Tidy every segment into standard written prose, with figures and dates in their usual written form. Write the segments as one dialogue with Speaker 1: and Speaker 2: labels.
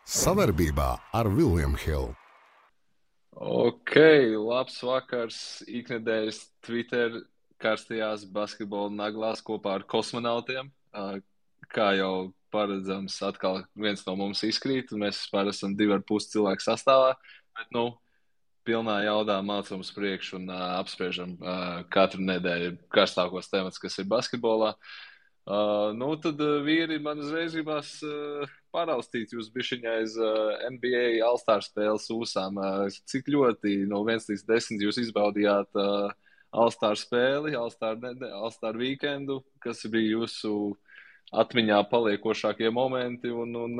Speaker 1: Savarbībā ar William Hill.
Speaker 2: Ok, labs vakars, iknedēļas Twitter karstajās basketbola naglās kopā ar kosmonautiem. Kā jau paredzams, atkal viens no mums izkrīt, un mēs vispār esam 2,5 cilvēku sastāvā, bet, pilnā jaudā mācām uz priekšu un apspriežam katru nedēļu karstākos temats, kas ir basketbolā. Tad vīri man uzreiz gribas paraustīt jūs bišķiņā aiz NBA All-Star spēles ūsām. Cik ļoti no 1 līdz 10 jūs izbaudījāt All-Star spēli, All-Star weekendu, kas bija jūsu atmiņā paliekošākie momenti, un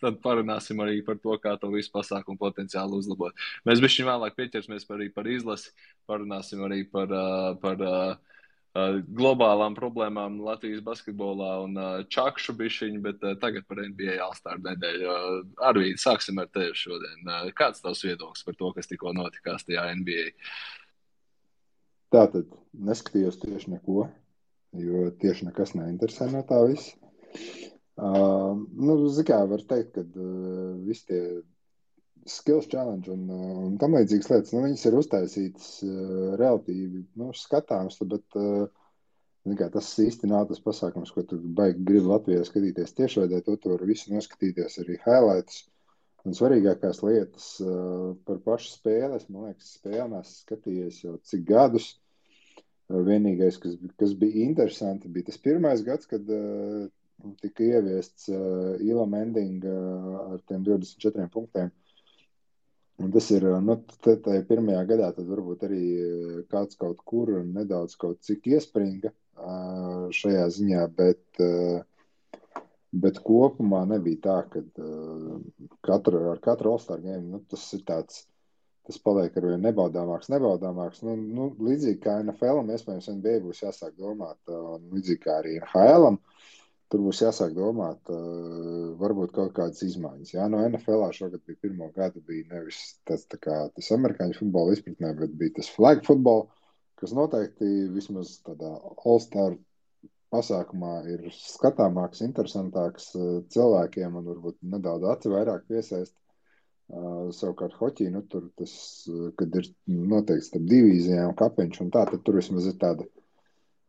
Speaker 2: tad parunāsim arī par to, kā to visu pasākumu potenciāli uzlabot. Mēs bišķiņ vēlāk pieķersimies arī par izlasi, parunāsim arī par globālām problēmām Latvijas basketbolā un čakšu bišķiņu, bet tagad par NBA All-Star nedēļu. Arvīd, sāksim ar tevi šodien. Kāds tavs viedoklis par to, kas tikko notikās tajā NBA?
Speaker 3: Tātad neskatījos tieši neko, jo tieši nekas neinteresē no tā visa. Kā var teikt, ka visi tie skills challenge un tam līdzīgas lietas, viņas ir uztaisītas relatīvi skatāms, bet tas īsti nav tas pasākums, ko tu baigi gribi Latvijā skatīties tiešraidē, to var visu noskatīties arī highlights. Un svarīgākās lietas par pašu spēles, man liekas, spēli neesmu skatījies jau cik gadus. Vienīgais, kas bija interesanti, bija tas pirmais gads, kad tika ieviests Elam Ending ar tiem 24 punktiem. Un tas ir, tajā pirmajā gadā tad varbūt arī kāds kaut kur nedaudz kaut cik iespringa šajā ziņā, bet kopumā nebija tā, ka ar katru All-Star game, tas ir tāds, tas paliek arvien nebaudāmāks. Līdzīgi kā NFL-am, iespējams NBA būs jāsāk domāt, un līdzīgi kā arī NHL-am, tur būs jāsāk domāt varbūt kaut kādas izmaiņas. Jā, no NFL-ā šogad bija pirmo gadu, bija nevis tas amerikāņu futbola izpratnē, bet bija tas flag football, kas noteikti vismaz tādā All-Star pasākumā ir skatāmāks, interesantāks cilvēkiem un varbūt nedaudz aci vairāk piesaist. Savukārt hoķī, tur tas, kad ir noteikti starp divīzijām kapeņš un tā, tad tur vismaz ir tāda,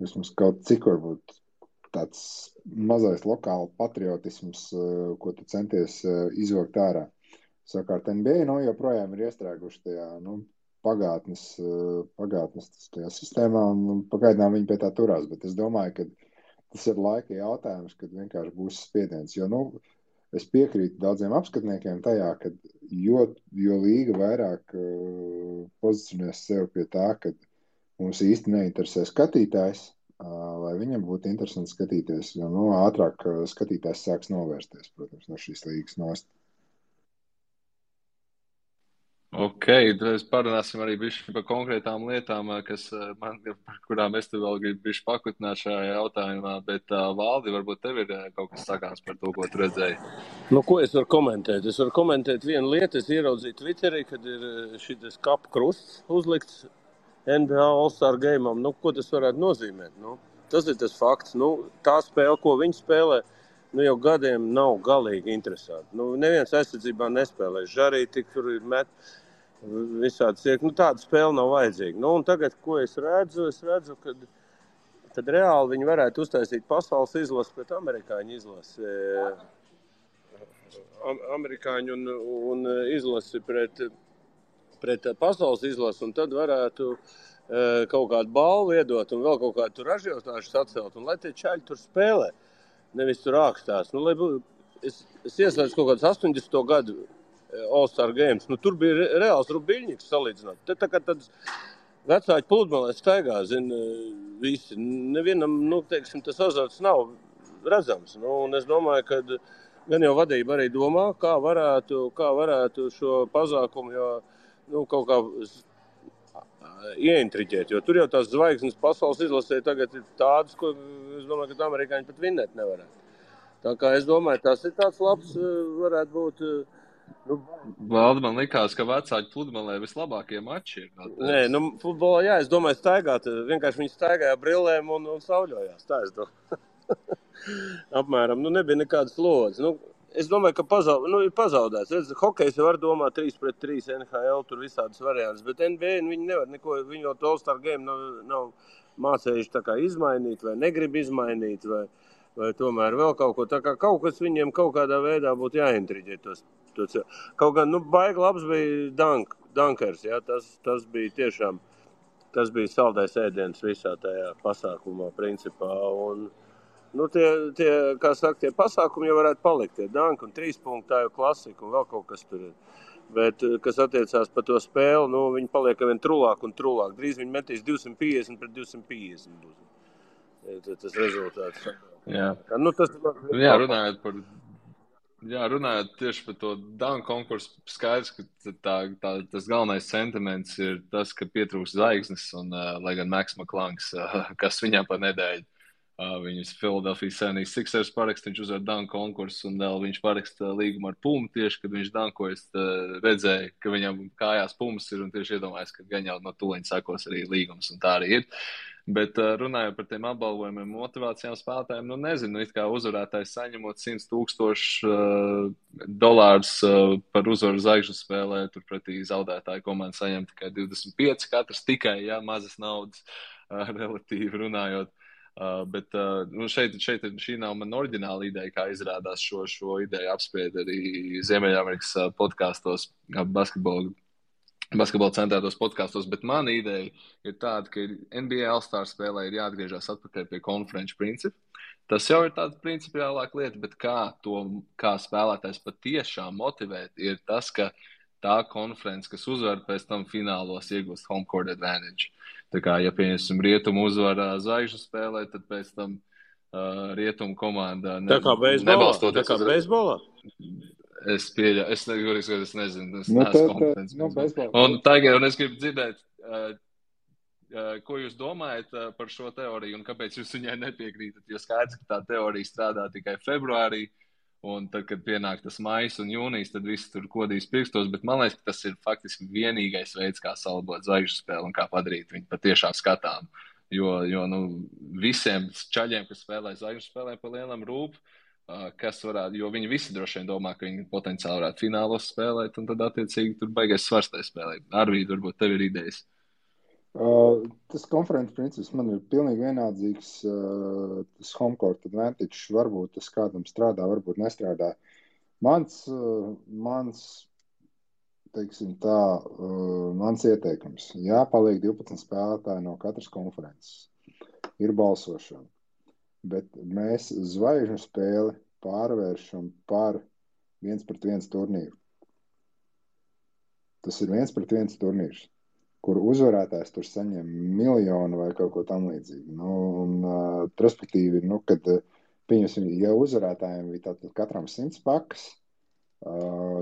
Speaker 3: vismaz kaut cik varbūt tāds mazais lokāla patriotisms, ko tu centies izvilkt ārā. Savukārt NBA joprojām ir iestrēguši tajā pagātnes tajā sistēmā un pagaidām viņi pie tā turās, bet es domāju, ka tas ir laika jautājums, kad vienkārši būs spiediens, jo es piekrītu daudziem apskatniekiem tajā, ka jo līga vairāk pozicionēs sev pie tā, ka mums īsti neinteresē skatītājs, lai viņam būtu interesanti skatīties, jo ātrāk skatītājs sāks novērsties, protams, no šīs līgas nost.
Speaker 2: Ok, tad parunāsim arī bišķi par konkrētām lietām, par kurām es tev vēl gribu bišķi pakutināt šajā jautājumā, bet Valdi, varbūt tev ir kaut kas sakāms par to, ko tu redzēji?
Speaker 4: Ko es varu komentēt? Es varu komentēt vienu lietu, es ieraudzīju Twitterī, kad ir šitas kapu krusts uzlikts NBA All-Star game'am. Ko tas varētu nozīmēt? Tas ir tas fakts. Tā spēle, ko viņi spēlē, jau gadiem nav galīgi interesanti. Neviens aizsardzībā nespēlē. Žarī tik tur ir met visādi ciek. Tāda spēle nav vajadzīga. Un tagad, ko es redzu, kad reāli viņi varētu uztaisīt pasaules izlasi pret amerikāņu izlasi. Amerikāņu un izlasi pret pasaules izlasi, un tad varētu kaut kādu balvu iedot un vēl kaut kādu tur ražotāšu sacelt, un lai tie čaļi tur spēlē, nevis tur ākstās. Es ieslēdzu kaut kādus 80. gadu All-Star games, tur bija reāls rubiļņiks salīdzināt. Te tā kā tāds vecāki pludmalē staigā, visi. Nevienam, teiksim, tas azarts nav redzams. Un es domāju, ka gan jau vadība arī domā, kā varētu šo pasākumu kaut kā ieintriģēt, jo tur jau tās zvaigznes pasaules izlasē tagad ir tādas, ko es domāju, ka amerikāņi pat vinnēt nevarētu. Tā kā es domāju, tas ir tāds labs, varētu būt.
Speaker 2: Valdi, man likās, ka vecāki pludmalē vislabākie mači ir.
Speaker 4: Nē, futbolā, jā, es domāju, staigāt, vienkārši viņi staigāja brillēm un sauļojās, tā es domāju. Apmēram, nebija nekādas slodzes. Es domāju, ka ir pazaudēts. Redz, hokejs var domāt 3-3 NHL, tur visādas variantas, bet NBA viņi nevar neko, viņi vēl to All-Star game nav mācējuši tā kā izmainīt vai negrib izmainīt vai tomēr vēl kaut ko. Tā kā kaut kas viņiem kaut kādā veidā būtu jāintriģē tos. Kaut gan, baigi labs bija Dunkers, jā, tas bija tiešām, tas bija saldais ēdiens visā tajā pasākumā principā un tie, kā saka, tie pasākumi jau varētu palikt, tie danki un 3 punkti, tā jau klasika un vēl kaut kas tur ir. Bet, kas attiecās par to spēli, viņi paliek vien trulāk un trulāk. Drīz viņi metīs 250 pret 250 būs. Tas rezultāts.
Speaker 2: Jā.
Speaker 4: Tas
Speaker 2: runājot tieši par to danku konkursu, skaidrs, ka tas galvenais sentiments ir tas, ka pietrūks zvaigznes un, lai gan Maks Maklangs, kas viņam pa nedēļu, viņus Philadelphia 76ers parakst, viņš uzvar danku konkursu un vēl viņš paraksta līgumu ar Pumu tieši, kad viņš dankojas, redzēja, ka viņam kājās Pumas ir un tieši iedomājas, ka gan jau no tūliņa sakos arī līgums un tā arī ir. Bet runājot par tiem apbalvojumiem motivācijām spēlētājiem, nezinu, it kā uzvarētājs saņemot $100,000 par uzvaru zvaigžņu spēlē, turpretī zaudētāju komanda saņem tikai 25 katrs, tikai, mazas naudas relatīvi runājot. Bet šeit šī nav man oriģināla ideja, kā izrādās šo ideju apspried arī Ziemeļamerikas podkastos, basketbola centrētos podkastos, bet mana ideja ir tāda, ka NBA All-Star spēlē ir jāatgriežas atpakaļ pie konferenču principu. Tas jau ir tāda principiālāka lieta, bet kā spēlētājs patiešām motivēt, ir tas, ka tā konference, kas uzvar pēc tam finālos, iegūst home court advantage. Tā kā, ja pieņemsim Rietumu uzvara zvaigžņu spēlē, tad pēc tam Rietumu komanda
Speaker 4: nebalstoties. Tā kā beisbolā?
Speaker 2: Es pieļauju, es nezinu, es neesmu kompetents. Un tagad es gribu dzirdēt, ko jūs domājat par šo teoriju un kāpēc jūs viņai nepiekrītat, jo skaidrs, ka tā teorija strādā tikai februārī. Un tad, kad pienāk tas maijs un jūnijas, tad viss tur kodīs pirkstos, bet man liekas, ka tas ir faktiski vienīgais veids, kā salabot zvaigžņu spēli un kā padarīt viņu patiešām skatām. Jo visiem čaļiem, kas spēlē zvaigžņu spēlē pa lielam rūp, jo viņi visi droši vien domā, ka viņi potenciāli varētu finālos spēlēt, un tad attiecīgi tur baigais svars tai spēlē. Arvīd, varbūt tev ir idejas.
Speaker 3: Tas konferences princips man ir pilnīgi vienādzīgs. Tas home court advantage varbūt tas kādam strādā, varbūt nestrādā. Mans teiksim tā, mans ieteikums. Jāpaliek 12 spēlētāji no katras konferences. Ir balsošana. Bet mēs zvaigžņu spēli pārvēršam par 1-1 turnīru. Tas ir 1-1 turnīrs, kur uzvarētājs tur saņem miljonu vai kaut ko tam līdzīgi. Respektīvi, kad pieņemsim, ja uzvarētājiem bija tātad katram 100 pakas,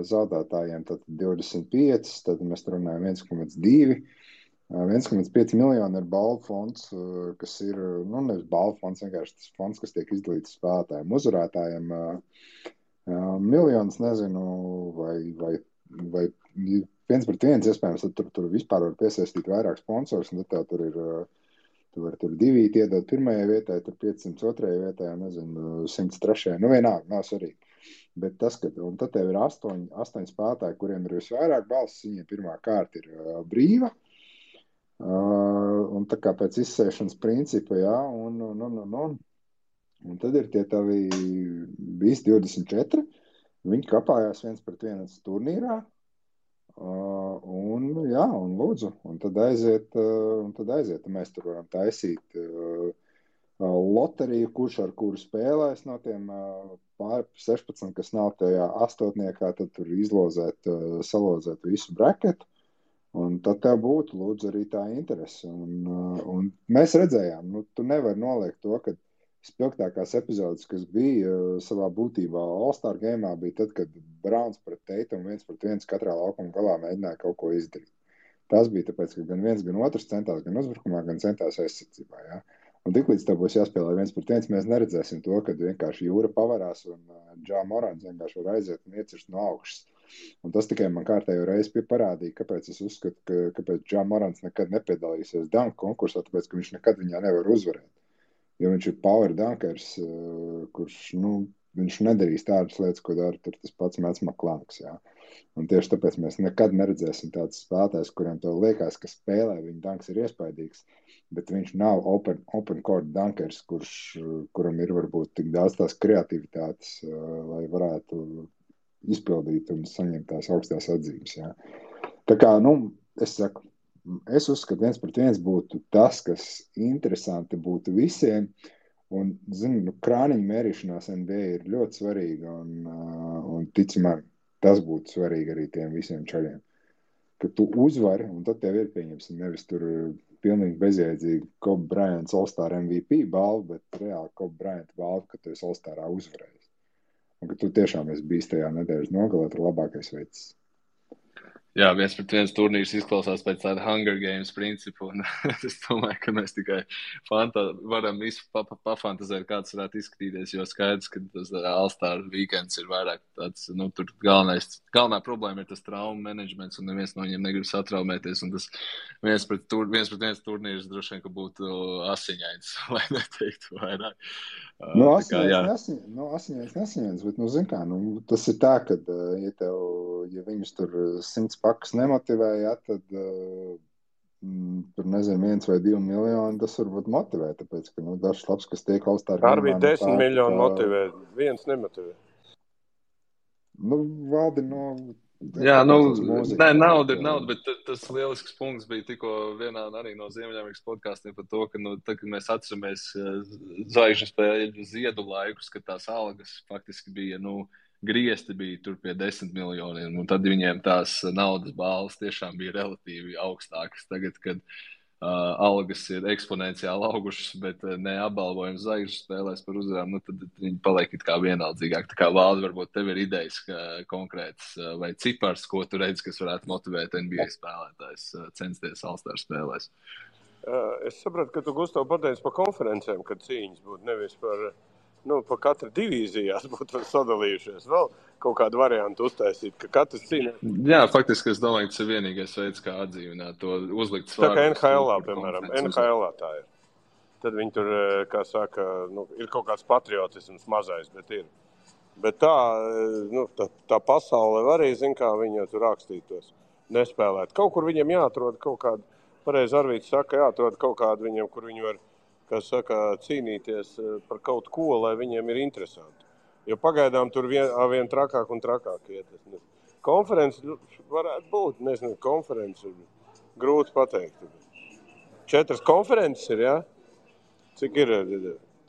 Speaker 3: zaudētājiem tad 25, tad mēs runājam 1,2. 1,5 miljoni ir balvu fonds, kas ir, nevis balvu fonds, vienkārši tas fonds, kas tiek izdalīts spēlētājiem. Uzvarētājiem miljonus, nezinu, vai 1-1, iespējams, tad tur vispār var piesaistīt vairāk sponsors, un tad tur ir, tu vari tur 2 iedot pirmajai vietai, tur 502 vietai, nezinu, 103. Vienalga, nav svarīgi. Bet tas, un tad tev ir 8 spēlētāji, kuriem ir visvairāk balsis, viņiem pirmā kārta ir brīva, un tā kā pēc izsēšanas principa, un tad ir tie tavi visi 24, viņi kapājās 1-1 turnīrā, un lūdzu, un tad aiziet, mēs tur varam taisīt loteriju, kurš ar kuru spēlēs no tiem pār 16, kas nav tajā astotniekā, tad tur salozēt visu braketu, un tad tev būtu, lūdzu, arī tā interese. Un mēs redzējām, tu nevari noliekt to, ka spilgtākās epizodes, kas bija savā būtībā All-Star game'ā, bija tad, kad Browns pret Tatum 1-1 katrā laukuma galā mēģināja kaut ko izdarīt. Tas bija tāpēc, ka gan viens, gan otrs centās gan uzbrukumā, gan centās aizsardzībā. Ja? Un tiklīdz tev būs jāspēlē 1-1, mēs neredzēsim to, kad vienkārši jūra pavarās un Ja Morants vienkārši var aiziet un iecirst no augšas. Un tas tikai man kārtējo reizi parādīja, kāpēc es uzskatu, kāpēc Ja Morants nekad nepiedalīsies dunk konkursā, tāpēc, ka viņš nekad viņā nevar uzvarēt. Jo viņš ir power dunkers, kurš, viņš nedarīs tādas lietas, ko dara tur tas pats Mets Maklangs, jā. Un tieši tāpēc mēs nekad neredzēsim tāds spēlētājs, kuriem tev liekas, ka spēlē viņa danks ir iespaidīgs, bet viņš nav open court dunkers, kuram ir varbūt tik daudz tās kreativitātes, lai varētu izpildīt un saņemt tās augstās atzīmes. Jā. Tā kā, es uzskatu, 1-1 būtu tas, kas interesanti būtu visiem. Un, krāniņu mērīšanās NBA ir ļoti svarīga un ticamāk, tas būtu svarīgi arī tiem visiem čaļiem. Ka tu uzvari, un tad tev ir pieņemsim nevis tur pilnīgi bezjēdzīgi Kobe Bryants All-Star MVP balvu, bet reāli Kobe Bryant balvu, ka tu esi All-Starā uzvarējis. Un ka tu tiešām esi bijis tajā nedēļas nogalē, ir labākais veids.
Speaker 2: Jā, 1-1 turnīrs izklausās pēc tāda Hunger Games principu, un es domāju, ka mēs tikai varam visu pafantazēt, kāds varētu izskatīties, jo skaidrs, ka tas All-Star weekends ir vairāk tāds, tur galvenā problēma ir tas traumu menedžments, un neviens no viņiem negrib satraumēties, un tas 1-1 turnīrs droši vien, ka būtu asiņains, lai neteiktu vairāk.
Speaker 3: Asiņains nesiņains, bet, zin kā, tas ir tā, ka, ja viņus tur 100 pakas nemotivēja, tad tur, 1 vai 2 miljoni, tas varbūt motivē, tāpēc, ka, dažs labs, kas tiek All-Star.
Speaker 4: Arī 10 miljoni motivē, viens nemotivē.
Speaker 3: Valdi,
Speaker 2: Jā, nauda ir nauda, bet tas lielisks punkts bija tikko vienā arī no Ziemeļamerikas podkāstiem par to, ka, kad mēs atceramies zvaigžņu spēļu ziedu laikus, kad tās algas faktiski bija, griezti bija tur pie 10 miljoniem, un tad viņiem tās naudas balvas tiešām bija relatīvi augstākas. Tagad, kad algas ir eksponenciāli augušas, bet ne apbalvojums zvaigžņu spēlēs par uzvarām, tad viņi paliek it kā vienaldzīgāk. Tā kā Valdi, varbūt tev ir idejas konkrētas vai cipars, ko tu redzi, kas varētu motivēt NBA spēlētājs censties All-Star spēlēs.
Speaker 4: Es sapratu, ka tu, Gustav, pateici par konferencēm, kad cīņas būtu nevis par katra divīzijās būtu sadalījušies. Vēl kaut kādu variantu uztaisīt, ka katrs cīnās.
Speaker 2: Jā, faktiski es domāju, ka tas ir vienīgais veids, kā atdzīvināt to uzlikt
Speaker 4: svārus. Tā kā NHL-ā, piemēram, NHL-ā tā ir. Tad viņi tur, kā saka, ir kaut kāds patriotisms mazais, bet ir. Bet tā pasaule arī, kā viņi tur rakstītos, nespēlēt. Kaut kur viņiem jāatrod kaut kādu, pareizi Arvīts saka, jāatrod kaut kādu viņiem, kur viņi var, kā saka, cīnīties par kaut ko, lai viņiem ir interesanti. Jo pagaidām tur vien trakāk un trakāk iet. Konferences varētu būt, nezinu, konferences grūti pateikt. 4 konferences ir, jā? Cik ir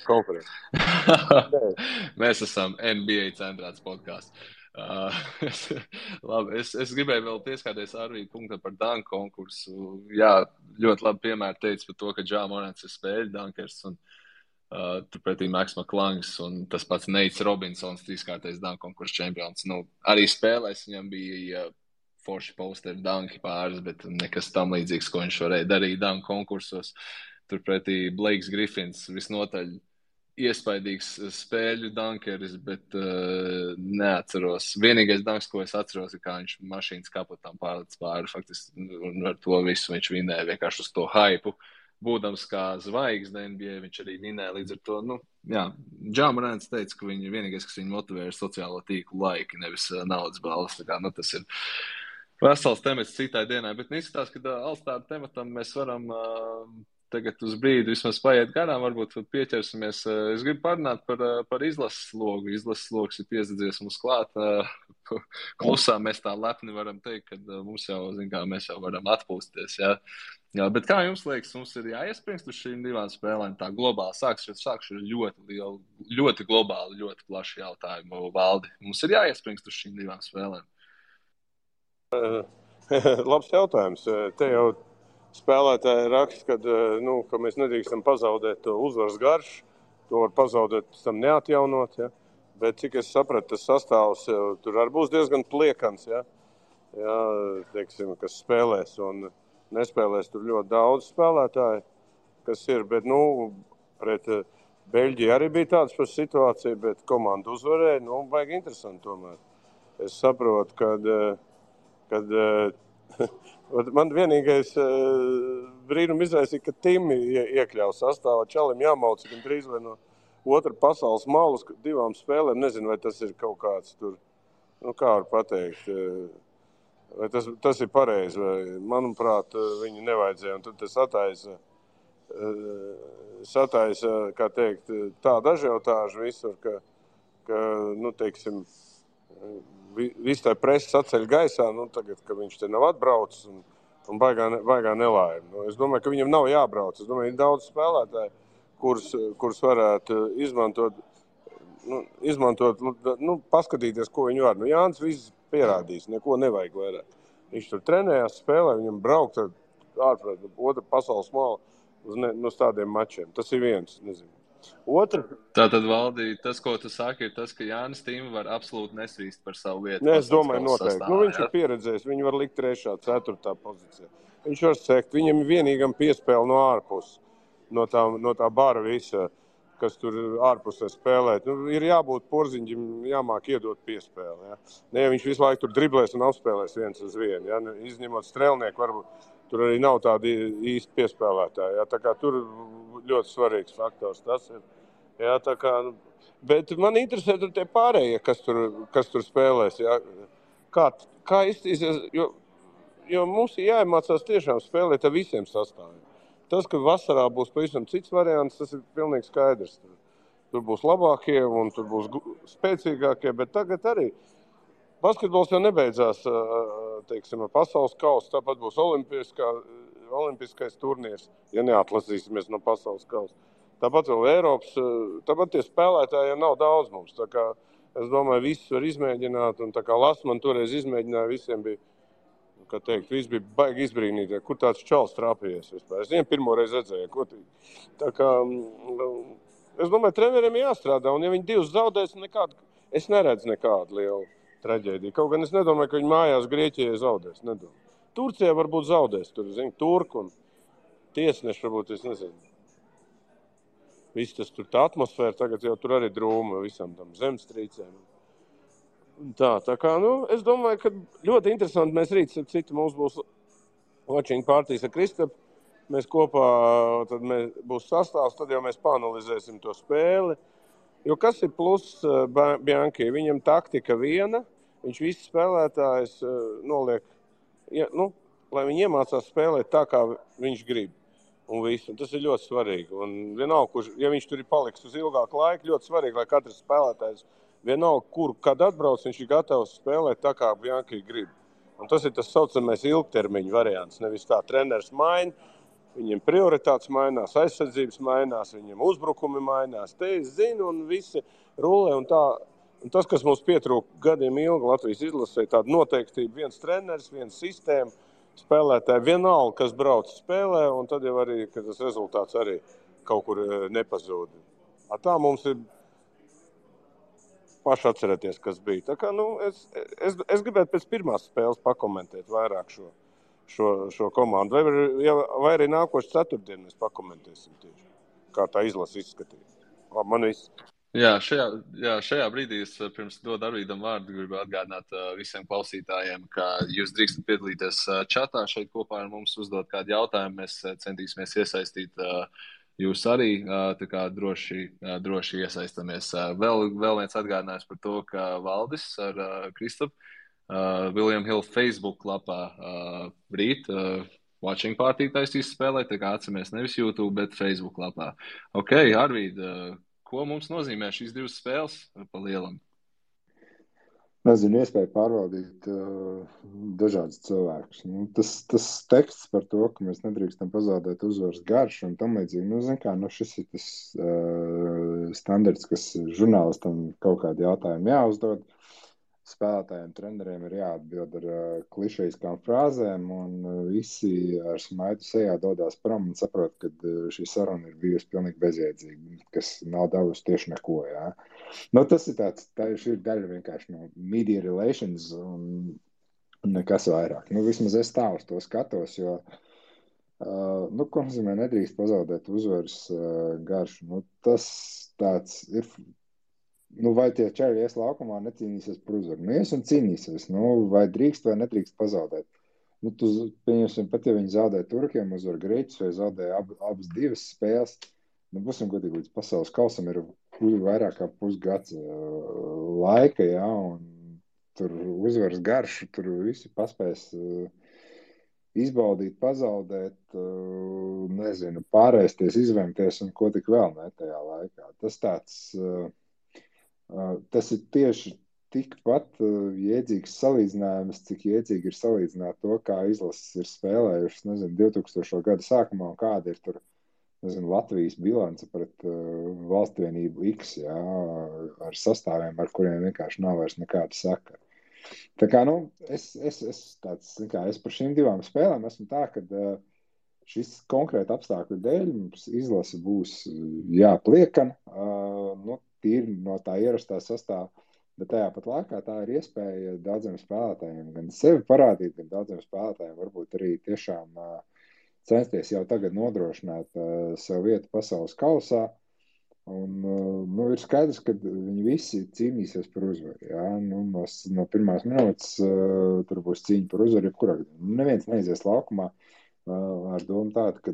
Speaker 4: konferences?
Speaker 2: Mēs esam NBA centrāts podkāsts. Labi, es gribēju vēl pieskārties Arvīda punktam par danku konkursu. Jā, ļoti labi piemēri teica par to, ka Ja Morants ir spēļu dankers un turpretī Maks Maklangs un tas pats Neits Robinsons, 3-kārtais danku konkursu čempions. Arī spēlēs viņam bija forši posteri danki pāris, bet nekas tam līdzīgs, ko viņš varēja darīt danku konkursos. Turpretī Blakes Griffins visnotaļ iespaidīgs spēļu dankeris, bet neatceros. Vienīgais danks, ko es atceros, ir kā viņš mašīnas kapotām pārlec pāri. Faktiski, un ar to visu viņš vinēja vienkārši uz to haipu. Būdams kā zvaigzne NBA, viņš arī vinēja līdz ar to. Ja Morants teica, ka vienīgais, kas viņu motivē, ir sociālo tīklu laiki, nevis naudas balvas. Tā kā, tas ir vesels temats citai dienai, bet izskatās, ka All-Star tematam mēs varam tagad uz brīdi vismaz paiet garām, varbūt pieķersimies. Es gribu parunāt par izlases logu. Izlases logs ir piesadzies mums klāt. Klusā mēs tā lepni varam teikt, ka mums jau, mēs jau varam atpūsties. Jā, bet kā jums liekas, mums ir jāiespringst uz šīm 2 spēlēm tā globāli? Sākšu ļoti lielu, ļoti globāli, ļoti plašu jautājumu, Valdi. Mums ir jāiespringst uz šīm 2 spēlēm?
Speaker 4: Labs jautājums. Te jau spēlētāji raksta, ka mēs nedrīkstam pazaudēt to uzvaras garšu, to var pazaudēt, tam neatjaunot, ja? Bet cik es sapratu, tas sastāvs tur arī būs diezgan pliekans, ja? Ja, teiksim, kas spēlēs un nespēlēs tur ļoti daudz spēlētāji, kas ir, bet, pret Beļģiju arī bija tāds par situāciju, bet komanda uzvarēja, baigi interesanti tomēr. Es saprotu, kad man vienīgais brīnum izraisīja, ka Timi iekļauj sastāvā. Čalim jāmauc gan drīz vai otra pasaules malas 2 spēlēm. Nezinu, vai tas ir kaut kāds tur, kā var pateikt, vai tas ir pareizi, vai, manuprāt, viņi nevajadzēja. Un tad tas sataisa, kā teikt, tāda ažiotāža visur, ka teiksim, viss tā presa saceļ gaisā, tagad, ka viņš te nav atbraucis un baigā nelaime. Es domāju, ka viņam nav jābrauc. Es domāju, ir daudz spēlētāji, kurus varētu izmantot, paskatīties, ko viņi var. Jānis viss pierādīs, neko nevajag vairāk. Viņš tur trenējās, spēlē, viņam braukt ārpus otra pasaules mala uz tādiem mačiem. Tas ir viens, nezinu. Otra.
Speaker 2: Tātad, Valdi, tas, ko tu saki, ir tas, ka Jānis Tīma var absolūti nesvīst par savu vietu.
Speaker 4: Es domāju, noteikti. Viņš ir pieredzējis, viņu var likt 3., 4. pozīcijā. Viņš var sekt, viņam vienīgam piespēle no ārpus, no tā bara visa, kas tur ārpusē spēlēt. Ir jābūt porziņģim, jāmāk iedot piespēli. Ja? Ne, viņš visu laiku tur driblēs un apspēlēs 1-1. Ja? Izņemot strēlnieku, varbūt tur arī nav tādi īsti piespēlētāji. Ja? Tā kā tur ļoti svarīgs faktors tas ir. Ja? Tā kā, bet man interesē tur tie pārējie, kas tur spēlēs. Ja? Kā iztīsies, jo mums ir jāiemācās tiešām spēlēt ar visiem sastāviem. Tas, ka vasarā būs pavisam cits variants, tas ir pilnīgi skaidrs. Tur būs labākie un tur būs spēcīgākie, bet tagad arī basketbols jau nebeidzās, teiksim, pasaules kausa, tāpat būs olimpiskais turnīrs, ja neatlasīsimies no pasaules kausa. Tāpat vēl Eiropas, tāpat tie spēlētāji jau nav daudz mums. Tā kā, es domāju, visus var izmēģināt, un tā kā Lasman toreiz izmēģināja, visiem bija, kā teikt, viss bija baigi izbrīnīti, kur tāds čals trāpījies vispār. Es viņiem pirmo reizi redzēju, kotīgi. Tā kā, es domāju, treneriem jāstrādā, un ja viņi 2 zaudēs, es neredzu nekādu lielu traģēdiju. Kaut gan es nedomāju, ka viņi mājās Grieķijai zaudēs, nedomāju. Turcijā varbūt zaudēs, tur, turku un tiesneši varbūt, es nezinu. Viss tas tur tā atmosfēra, tagad jau tur arī drūma visam tam zemstrīcēm. Tā kā, es domāju, ka ļoti interesanti mēs rīt, citu mums būs watching partijas ar Kristapu. Mēs kopā, tad būs sastāvs, tad jau mēs paanalizēsim to spēli. Jo kas ir pluss Bianchi? Viņam taktika viena, viņš visus spēlētājus noliek, lai viņi iemācās spēlēt tā, kā viņš grib. Un visu. Un tas ir ļoti svarīgi. Un vienalga, ja viņš tur ir paliks uz ilgāku laiku, ļoti svarīgi, lai katrs spēlētājs vienalga, kad atbrauc, viņš ir gatavs spēlēt tā, kā Bianchi grib. Un tas ir tas saucamais ilgtermiņa variants. Nevis tā treneris maina, viņiem prioritātes mainās, aizsardzības mainās, viņiem uzbrukumi mainās. Te es zinu, un visi rulē un tā. Un tas, kas mums pietrūka gadiem ilgi Latvijas izlasē, tāda noteiktība, viens treneris, viens sistēma, spēlētāji vienalga, kas brauc spēlē, un tad jau arī, ka tas rezultāts arī kaut kur nepazūd. Tā mums ir paši atcerēties, kas bija. Tā kā, es gribētu pēc pirmās spēles pakomentēt vairāk šo komandu. Vai arī nākošu ceturtdienu mēs pakomentēsim tieši, kā tā izlase izskatīja. Man viss.
Speaker 2: Jā, šajā brīdī es pirms dod Arvīdam vārdu gribu atgādināt visiem klausītājiem, ka jūs drīkstat piedalīties čatā šeit kopā ar mums, uzdot kādu jautājumu. Mēs centīsimies iesaistīt jūs arī, tā kā droši iesaistamies. Vēl viens atgādinājums par to, ka Valdis ar Kristapu William Hill Facebook lapā rīt watching party taisīs spēlēt, tā kā atceramies nevis YouTube, bet Facebook lapā. Ok, Arvīd, ko mums nozīmē šīs 2 spēles pa lielam?
Speaker 3: Nezinu, iespēja pārvaldīt dažādus cilvēkus. Tas teksts par to, ka mēs nedrīkstam pazaudēt uzvaras garšu un tam līdzīgi. Šis ir tas standarts, kas žurnālistam kaut kādu jautājumu jāuzdod. Spēlētājiem, treneriem ir jāatbild ar klišejiskām frāzēm, un visi ar smaidu sejā dodās prom un saprot, ka šī saruna ir bijusi pilnīgi bezjēdzīga, kas nav devusi tieši neko. Jā. Tas ir šī ir daļa vienkārši no media relations un nekas vairāk. Vismaz es tā uz to skatos, jo, ko nozīmē nedrīkst pazaudēt uzvaras garšu. Tas tāds ir. Vai tie čaļi ies laukumā necīnīsies par uzvaru? Ies un cīnīsies. Vai drīkst vai nedrīkst pazaudēt? Pieņemsim, pat ja viņi zaudē turkiem, uzvar Grieķus vai zaudē abas 2 spēles, būsim godīgi līdz pasaules kausam ir vairāk kā pusgads laika, jā, un tur uzvaras garšu, tur visi paspēs izbaudīt, pazaudēt, nezinu, pārēsties, izvemties un ko tik vēl ne tajā laikā. Tas ir tieši tikpat jēdzīgs salīdzinājums, cik jēdzīgi ir salīdzināt to, kā izlases ir spēlējušas, nezinu, 2000. gada sākumā un kāda ir tur, nezinu, Latvijas bilance pret valstvienību X, jā, ar sastāviem, ar kuriem vienkārši nav vairs nekāda sakara. Tā kā, es par šīm divām spēlēm esmu tā, ka šis konkrēti apstākļu dēļ mums izlase būs jāpliekana, tīri no tā ierastā sastāvā, bet tajā pat laikā tā ir iespēja daudziem spēlētājiem gan sevi parādīt, gan daudziem spēlētājiem varbūt arī tiešām censties jau tagad nodrošināt sev vietu pasaules kausā. Un, ir skaidrs, ka viņi visi cīnīsies par uzvaru. Ja? No pirmās minūtes tur būs cīņa par uzvaru, jebkurā gadījumā. Neviens neizies laukumā ar domu tādu, ka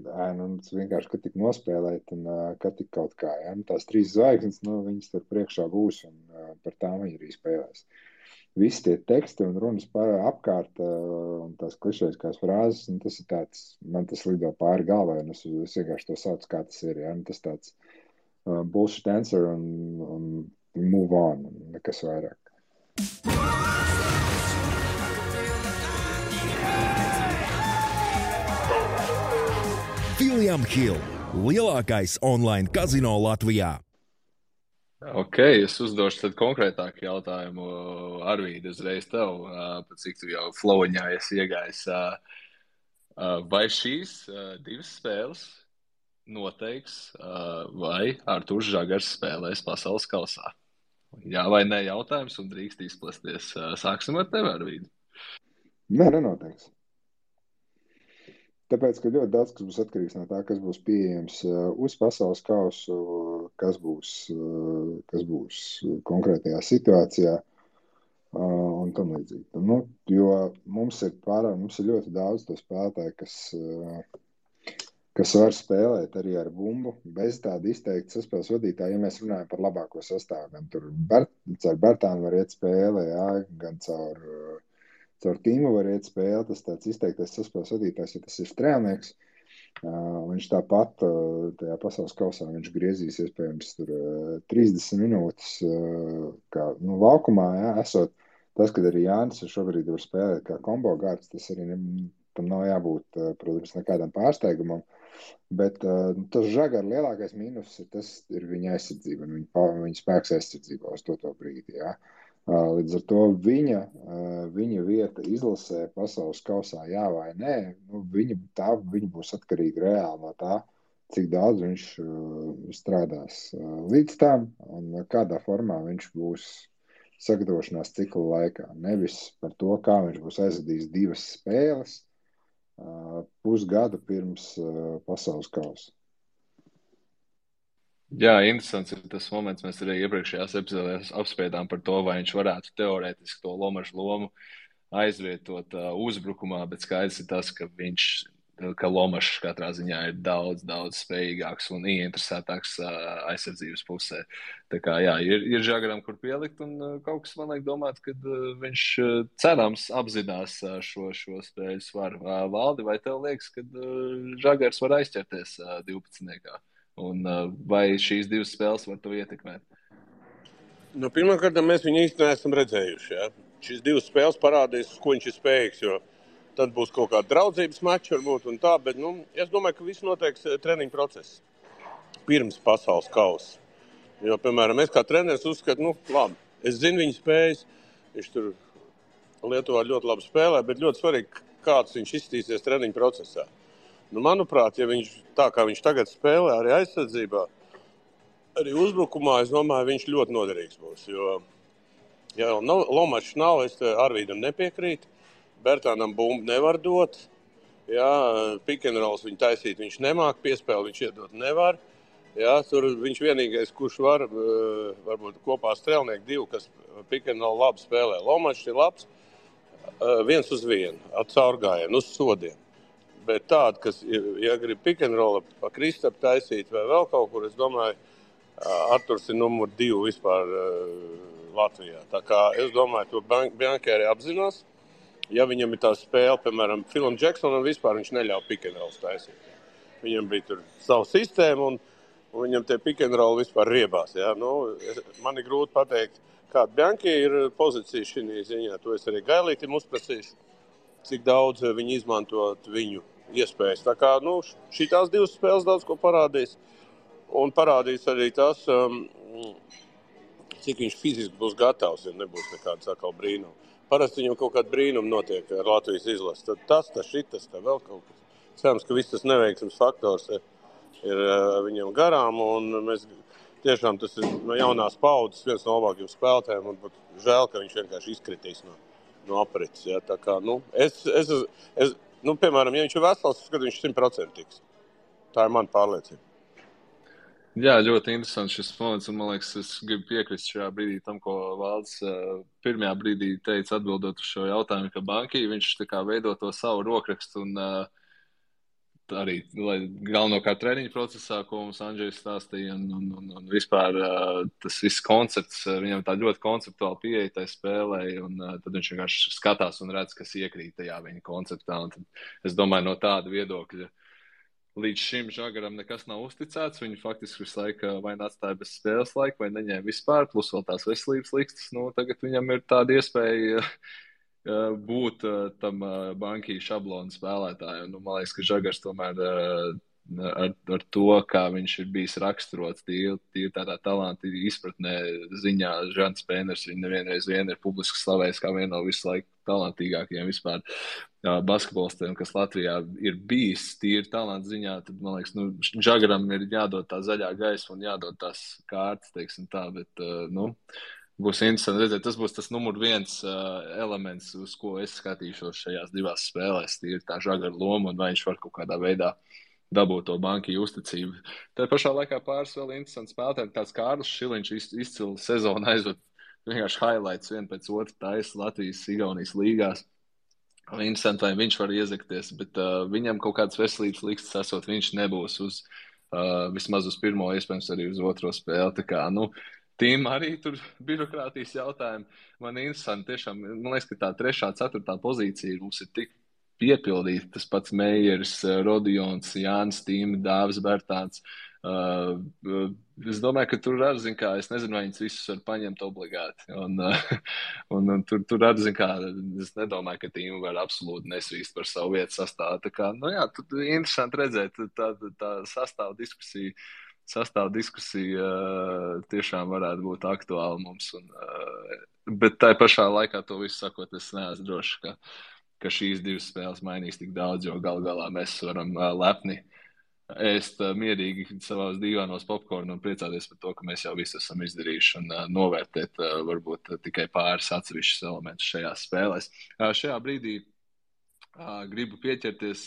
Speaker 3: vienkārši, kad tik nospēlēt un kad tik kaut kā. Ja? Tās 3 zvaigznes, viņas tur priekšā būs un par tām viņi arī spēlēs. Visi tie teksti un runas apkārt un tās klišejiskās frāzes, tas ir tāds, man tas lido pāri galvai, un es vienkārši to saucu, kā tas ir. Ja? Tas tāds bullshit answer un move on, un nekas vairāk.
Speaker 5: William Hill, lielākais online kazino Latvijā.
Speaker 2: Ok, es uzdošu tad konkrētāku jautājumu Arvīdi uzreiz tev, cik tu jau flowiņā esi iegājis. Vai šīs 2 spēles noteiks, vai Artūrs Žagars spēlēs pasaules kausā? Jā vai nē jautājums un drīkst izplasties. Sāksim ar tevi, Arvīdi.
Speaker 3: Nē, nenoteiks. Tāpēc, ka ļoti daudz kas būs atkarīgs no tā, kas būs pieejams uz pasaules kausu, kas būs konkrētajā situācijā un tam līdzīgi. Jo mums ir ļoti daudz to spēlētāju, kas var spēlēt arī ar bumbu, bez tāda izteikta saspēles vadītāja, ja mēs runājam par labāko sastāvu. Gan tur caur Bertānu var iet spēle, jā, gan caur tīmu var iet spēle, tas tāds izteiktais saspēles vadītājs, ja tas ir strēlnieks, viņš tāpat tajā pasaules kausā viņš griezīs iespējams tur 30 minūtes, kā laukumā, jā, esot tas, kad arī Jānis šobrīd var spēlēt kā kombo gārds, tas arī tam nav jābūt, protams, nekādam pārsteigumam, bet tas Žagara lielākais mīnus ir viņa aizsardzība un viņa spēks aizsardzībā uz to brīdi, jā. Līdz ar to viņa vieta izlasē pasaules kausā jā vai nē, viņa būs atkarīga reāli no tā, cik daudz viņš strādās līdz tam un kādā formā viņš būs sagatavošanās cikla laikā. Nevis par to, kā viņš būs aizvadījis 2 spēles pusgadu pirms pasaules kausa.
Speaker 2: Jā, interesants ir tas moments, mēs arī iepriekšējās epizodēs apspriedām par to, vai viņš varētu teorētiski to Lomašu lomu aizvietot uzbrukumā, bet skaidrs ir tas, ka Lomašs katrā ziņā ir daudz spējīgāks un ieinteresētāks aizsardzības pusē. Tā kā jā, ir Žagaram, kur pielikt, un kaut kas man liek domāt, ka viņš cerams apzinās šo spēļu svaru. Valdi, vai tev liekas, ka Žagars var aizķerties 12. Un vai šīs 2 spēles var to ietekmēt?
Speaker 4: Pirmkārt, mēs viņu īsti neesam redzējuši. Ja? Šīs 2 spēles parādīs, ko viņš ir spējīgs, jo tad būs kaut kāda draudzības mača varbūt un tā, bet es domāju, ka viss noteiks treniņu procesu pirms pasaules kausa. Jo, piemēram, es kā treneris uzskatu, labi, es zinu viņa spējas, viņš tur Lietuvā ļoti labi spēlē, bet ļoti svarīgi, kāds viņš izstīsies treniņu procesā. Manuprāt, ja viņš tā kā viņš tagad spēlē arī aizsardzībā, arī uzbrukumā, es domāju, viņš ļoti noderīgs būs. Jo, ja Lomašs nav, es Arvīdam nepiekrītu, Bertānam bumbu nevar dot, jā, pick and rolls viņu taisīt, viņš nemāk, piespēli viņš iedot nevar. Jā, tur viņš vienīgais, kurš var, varbūt kopā strēlnieki 2, kas pick and roll labi spēlē. Lomašs ir labs, 1 uz 1, ar caurgājienu, uz sodiem. Bet tāda, kas, ja grib pick and roll pa Kristapu taisīt vai vēl kaut kur, es domāju, Arturs ir numur 2 vispār Latvijā. Tā kā es domāju, to Bianchi arī apzinās. Ja viņam ir tā spēle, piemēram, Philam Jacksonam vispār viņš neļauj pick and roll taisīt. Viņam bija tur savu sistēmu un viņam tie pick and roll vispār riebās. Ja? Man ir grūti pateikt, kāda Bianchi ir pozīcija šī ziņā. To es arī Gailītim uzprasīšu, cik daudz viņi izmantot viņu iespējas. Tā kā šitās 2 spēles daudz ko parādīs. Un parādīs arī tas, cik viņš fiziski būs gatavs, ja nebūs nekāds atkal brīnums. Parasti viņam kaut kāda brīnuma notiek ar Latvijas izlasi. Tad tas, šitas, vēl kaut kas. Cerams, ka viss tas neveiksmes faktors ir viņam garām. Un mēs tiešām tas ir no jaunās paudzes viens no labākajiem spēlētājiem. Un pat žēl, ka viņš vienkārši izkritīs no aprits. Ja? Tā kā, piemēram, ja viņš ir vesels, tad viņš 100% tiks. Tā ir mana pārliecība.
Speaker 2: Jā, ļoti interesants šis moments, un man liekas, es gribu piekrist šajā brīdī tam, ko Valds pirmajā brīdī teica atbildot uz šo jautājumu, ka Bianchi, viņš tā kā veido to savu rokrakstu un arī galvenokārt treniņu procesā, ko mums Andžejs stāstīja, un vispār tas viss koncepts, viņam tā ļoti konceptuāli pieeja tai spēlē, un tad viņš vienkārši skatās un redz, kas iekrīt tajā viņa konceptā, un tad es domāju no tāda viedokļa. Līdz šim Žagaram nekas nav uzticēts. Viņu faktiski visu laiku vai atstāja bez spēles laika, vai neņēma vispār, plus vēl tās veselības likstas. Tagad viņam ir tāda iespēja būt tam Bianchi šablonu spēlētāju. Man liekas, ka Žagars tomēr ar to, kā viņš ir bijis raksturots, tīri tādā talanta izpratnē ziņā, Žants Pēners viņu nevienreiz ir publiski slavējis kā vienu no visu laiku talantīgākajiem vispār basketbolistiem, kas Latvijā ir bijis tīri talanta ziņā, tad, man liekas, Žagaram ir jādod tā zaļā gaisma un jādod tās kārtas, teiksim tā, bet, būs interesanti redzēt, tas būs tas numur 1 elements, uz ko es skatīšos šajās 2 spēlēs, tīri tā Žagara loma un vai viņš var kaut kādā veidā dabūt to Bianchi uzticību. Tā pašā laikā pāris vēl interesants spēlētāji, tāds Kārlis Šiliņš izcili sezonu aizved vienkārši highlights vien pēc otru taisa Latvijas Igaunijas līgās. Interesanti, vai viņš var iezakties, bet viņam kaut kādas veselības likstas esot, viņš nebūs uz vismaz uz pirmo, iespējams arī uz otro spēli. Tā kā, tīm arī tur birokrātijas jautājumi. Man interesanti, tiešām, man liekas, ka tā 3., 4. pozīcija mums ir tik piepildīta. Tas pats Meijers, Rodions, Jānis Tīmi, Dāvis Bertāns. Es domāju, ka tur arī, es nezinu, vai viņus visus var paņemt obligāti. Un tur arī, es nedomāju, ka tīmu var absolūti nesvīst par savu vietu sastāvu. Tā kā, tur interesanti redzēt, tā sastāv diskusija tiešām varētu būt aktuāla mums. Bet tai pašā laikā to visu sakot, es neesmu drošs, ka šīs 2 spēles mainīs tik daudz, jo galā mēs varam lepni ēst mierīgi savās dīvānos popkornu un priecāties par to, ka mēs jau visu esam izdarījuši un novērtēt varbūt tikai pāris atsevišķus elementus šajās spēlēs. Šajā brīdī gribu pieķerties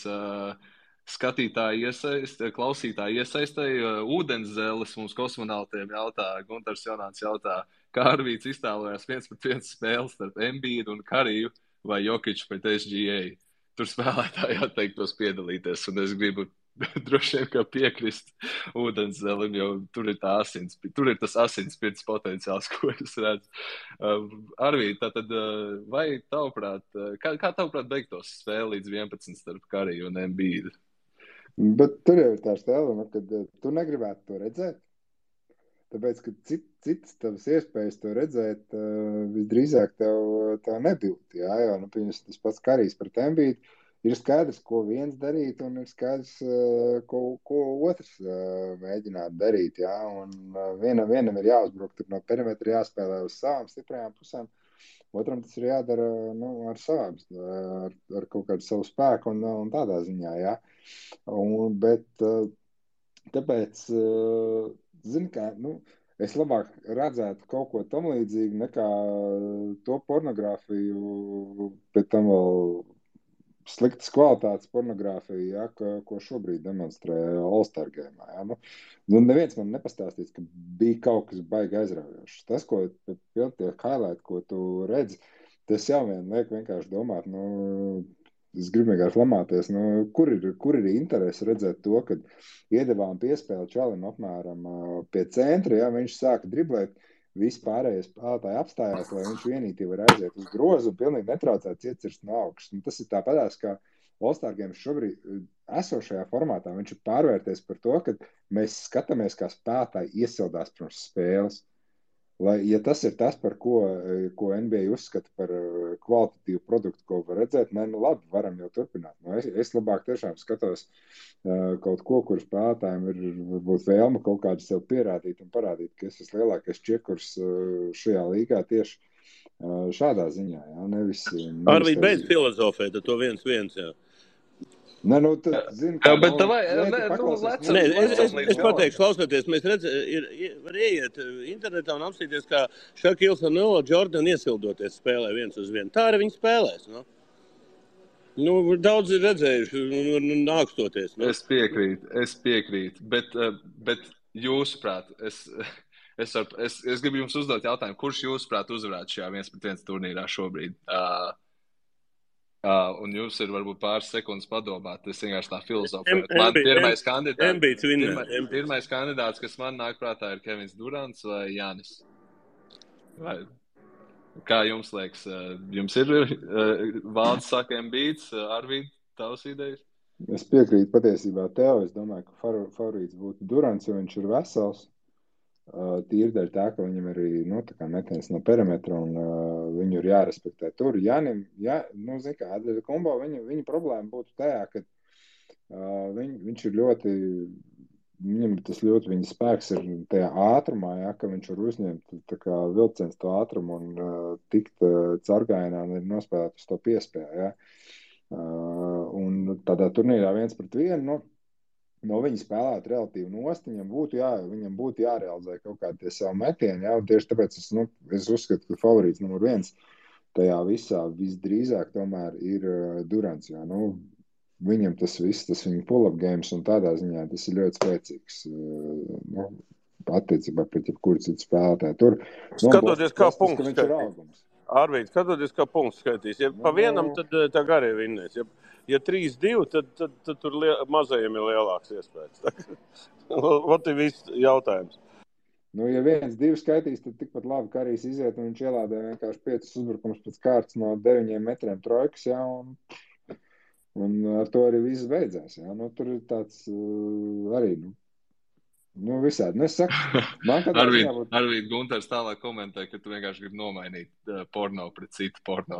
Speaker 2: klausītāju iesaistēji. Ūdenszeles mums kosmonautiem jautā, Guntars Jonāns jautā, kā Arvīts iztēlojās 1-1 spēles starp Embiidu un Kariju vai Jokiču pret SGA. Tur spēlētāji atteiktos piedalīties, un es gribu droši vien kā piekrist Ūdenszelim, jo tur ir tas asinspirts potenciāls, ko es redzu. Arvīd, tātad, vai tavuprāt, kā tavuprāt beigtos spēle līdz 11 starp Kariju un Embiidu?
Speaker 3: Bet tur jau ir tā stēle, kad tu negribētu to redzēt. Tāpēc, ka citas tavas iespējas to redzēt, visdrīzāk tev nebūtu. Jā, jo, tas pats Karijs pret Embiidu ir skaidrs, ko viens darīt, un ir skaidrs, ko otrs mēģināt darīt. Jā, un vienam ir jāuzbruk no perimetra, jāspēlē uz savām stiprajām pusēm. Otram tas ir jādara ar savām, ar kaut kādu savu spēku un tādā ziņā. Jā. Bet tāpēc... Zini, kā, es labāk redzētu kaut ko tam līdzīgu nekā to pornogrāfiju, pēc tam vēl sliktas kvalitātes pornogrāfiju, ja, ko šobrīd demonstrē All-Star Game. Ja. Neviens man nepastāstīs, ka bija kaut kas baigi aizraujošs. Tas, ko tie highlight, ko tu redzi, tas jau vien liek vienkārši domāt, es gribu vienkārši lamāties, kur ir interesi redzēt to, kad iedevām piespēli Čalim apmēram pie centra, ja viņš sāka driblēt, visi pārējie spēlētāji apstājās, lai viņš vienīgi var aiziet uz grozu un pilnīgi netraucēts iecirst no augšas. Tas ir tāpatās, kā All-Star Games šobrīd esošajā formātā. Viņš ir pārvērties par to, ka mēs skatāmies, kā spēlētāji iesildās pirms spēles. Ja tas ir tas, par ko NBA uzskata par kvalitatīvu produktu, ko var redzēt, labi, varam jau turpināt. Es labāk tiešām skatos kaut ko, kur spēlētājiem ir varbūt vēlme kaut kādu sev pierādīt un parādīt, ka es esmu lielākais čekurs šajā līgā tieši šādā ziņā. Jā, nevis
Speaker 4: Arvīd, beidz filozofēt, to 1-1, jā.
Speaker 3: Nē, tad, zini,
Speaker 4: es pateikšu, klausoties, mēs var ieiet internetā un apstīties, kā Šakils un Jordan iesildoties spēlē 1-1. Tā arī viņi spēlēs, daudz ir redzējuši un nākstoties.
Speaker 2: Es piekrītu, bet jūsuprāt, es gribu jums uzdot jautājumu, kurš jūsuprāt uzvarētu šajā 1-1 turnīrā šobrīd? Un jūs ir varbūt pāris sekundes padomāt, es vienkārši tā filozofēju. Man pirmais kandidāts, kas man nāk prātā, ir Kevins Durants vai Jānis. Kā jums liekas? Jums ir Valds saka Embiids, Arvīd, tavas idejas?
Speaker 3: Es piekrītu patiesībā tev. Es domāju, ka favorīts būtu Durants, jo viņš ir vesels. Tīri dēļ tā, ka viņam arī metiens no perimetra un viņu ir jārespektē tur. Jānim, kombo viņa problēma būtu tajā, ka viņš ir ļoti, viņam tas ļoti viņa spēks ir tajā ātrumā, ka viņš var uzņemt tā kā vilciens to ātrumu un tikt caurgājienā un nospēlēt uz to piespēju. Un tādā turnīrā 1-1, no viņa spēlēt relatīvi nost, viņam būtu jārealizē kaut kādi tie savu metieni, un tieši tāpēc es uzskatu, ka favorīts numur 1 tajā visā visdrīzāk tomēr ir Durants, viņam tas viss, tas viņa pull-up games un tādā ziņā tas ir ļoti spēcīgs, attiecībā pret jebkuru citu spēlētāju. Tur,
Speaker 4: skatoties kā punkts skaitīs. Arvīd, skatoties kā punkts skaitīs. Ja pa vienam, tad tā garie vinnēs. Ja 3-2, tad tur mazajiem ir lielāks iespējas. Vat ir viss jautājums.
Speaker 3: Ja 1-2 skaitīs, tad tikpat labi Karijs iziet un viņš ielādē vienkārši 5 uzbrukums pēc kārtas no 9 metriem trojkas, un ar to arī viss beidzās. Tur ir tāds arī, visādi. Es saku, man kādā ziņā būtu...
Speaker 2: Arvīd Gunters tālāk komentē, ka tu vienkārši gribi nomainīt porno pret citu porno.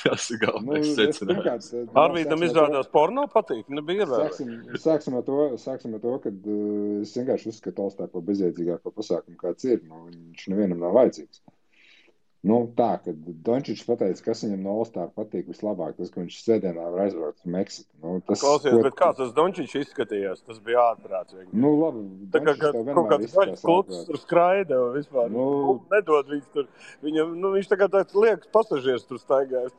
Speaker 2: Tas ir galvenais secinājums.
Speaker 4: Arvīdam izrādās porno patīk, nebija ievērojami.
Speaker 3: Sāksim ar to, kad es vienkārši uzskatu All-Star par bezjēdzīgāko pasākumu, kāds ir. Viņš nevienam nav vajadzīgs. Tā, kad Dončičs pateica, kas viņam no All-Star patīk vislabāk, tas, ka viņš sēdienā var aizbraukt uz Meksiku.
Speaker 4: Klausies, bet kā tas Dončičs izskatījās? Tas bija ārprāts.
Speaker 3: Labi.
Speaker 4: Tā kā kaut kāds gaļas kluts tur skraida un vispār. Nedod viņš tur. Viņam, viņš tā kā tāds liekas pasažieris tur staigājas.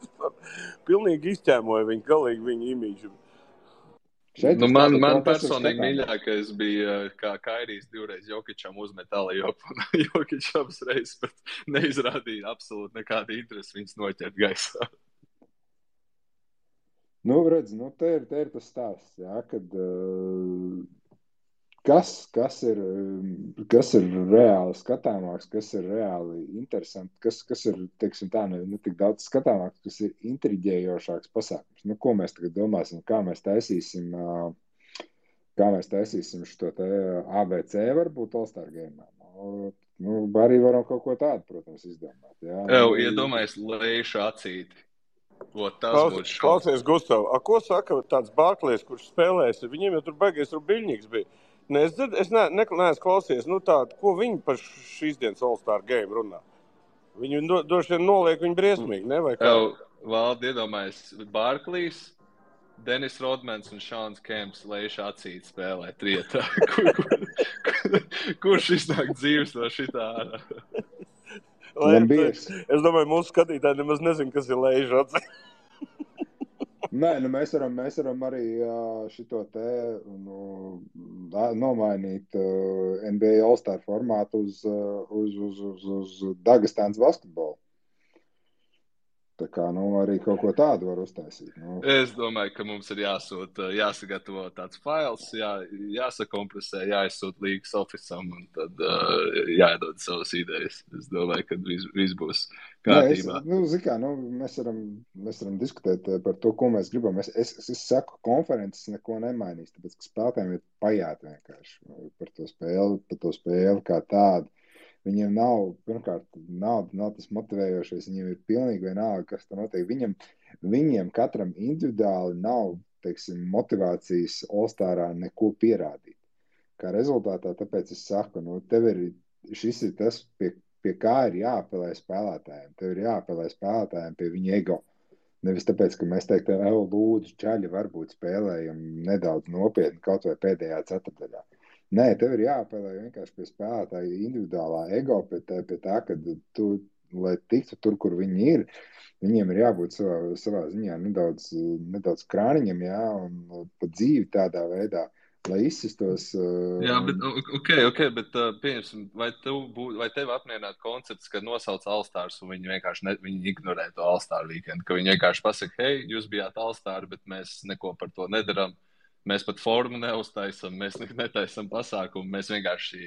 Speaker 4: Pilnīgi izķēmoja viņu, galīgi viņu imīžu.
Speaker 2: Man personīgi mīļākais bija, kā Kairijs 2 reiz Jokičam uzmet alley-oop, un Jokič abas reizes pat neizrādīja absolūti nekādu interesi viņus noķert gaisā.
Speaker 3: Redz, te ir tas stāsts, kad kas ir reāli skatāmāks, kas ir reāli interesanti, kas ir, teiksim tā, ne tik daudz skatāmāks, kas ir intriģējošāks pasākums. Ko mēs tagad domāsim, kā mēs taisīsim šo te ABC varbūt All-Star Game. Arī varam kaut ko tādu, protams, izdomāt.
Speaker 2: Iedomājies Leišu acīti.
Speaker 4: Klausies, Gustav, ko saka tāds Barklejs, kurš spēlēs? Viņiem jau tur baigies Rubiļņiks bija. Es neesmu klausies, ko viņi par šīs dienas All-Star Game runā. Viņi droši vien noliek viņu briesmīgi, ne? Vai kā?
Speaker 2: Valdi, iedomājies, Barklejs, Denis Rodmans un Šāns Kemps Leiša acīt spēlē trietā. Kurš iznāk dzīves no šitā ārā?
Speaker 4: Es domāju, mūsu skatītāji nemaz nezin, kas ir Leiša acīt.
Speaker 3: Nē, mēs varam arī šito te nomainīt NBA All-Star formātu uz Dagestānas basketbolu. Tā kā, arī kaut ko tādu var uztaisīt.
Speaker 2: Es domāju, ka mums ir jāsagatavo tāds fails, jāsakompresē, jāizsūt līgas ofisam un tad jāiedod savas idejas. Es domāju, ka viss būs kārtībā.
Speaker 3: Mēs varam diskutēt par to, ko mēs gribam. Es saku, konferences neko nemainīs, tāpēc, ka spēlētājiem ir pajāt vienkārši par to spēli kā tādu. Viņiem pirmkārt, nav tas motivējošais, viņiem ir pilnīgi vienalga, kas tur notiek. Viņiem katram individuāli nav, teiksim, motivācijas All-Starā neko pierādīt. Kā rezultātā, tāpēc es saku, šis ir tas, pie kā ir jāapelē spēlētājiem. Tev ir jāapelē spēlētājiem pie viņa ego. Nevis tāpēc, ka mēs teiktu, lūdzu, čaļi varbūt spēlējam nedaudz nopietni kaut vai pēdējā ceturtdaļā. Nē, tev ir jāapelē vienkārši pie spēlētāja individuālā ego, pie tā, ka tu, lai tiktu tur, kur viņi ir, viņiem ir jābūt savā ziņā nedaudz krāniņam, un pa dzīvi tādā veidā, lai izsistos.
Speaker 2: Jā, bet bet pieņemsim, vai tev apmierinātu koncepts, ka nosauc All-Stars un viņi vienkārši viņi ignorē to All-Star weekendu, ka viņi vienkārši pasaka, hei, jūs bijāt All-Star, bet mēs neko par to nedaram. Mēs pat formu neuztaisam, mēs netaisam pasākumu, mēs vienkārši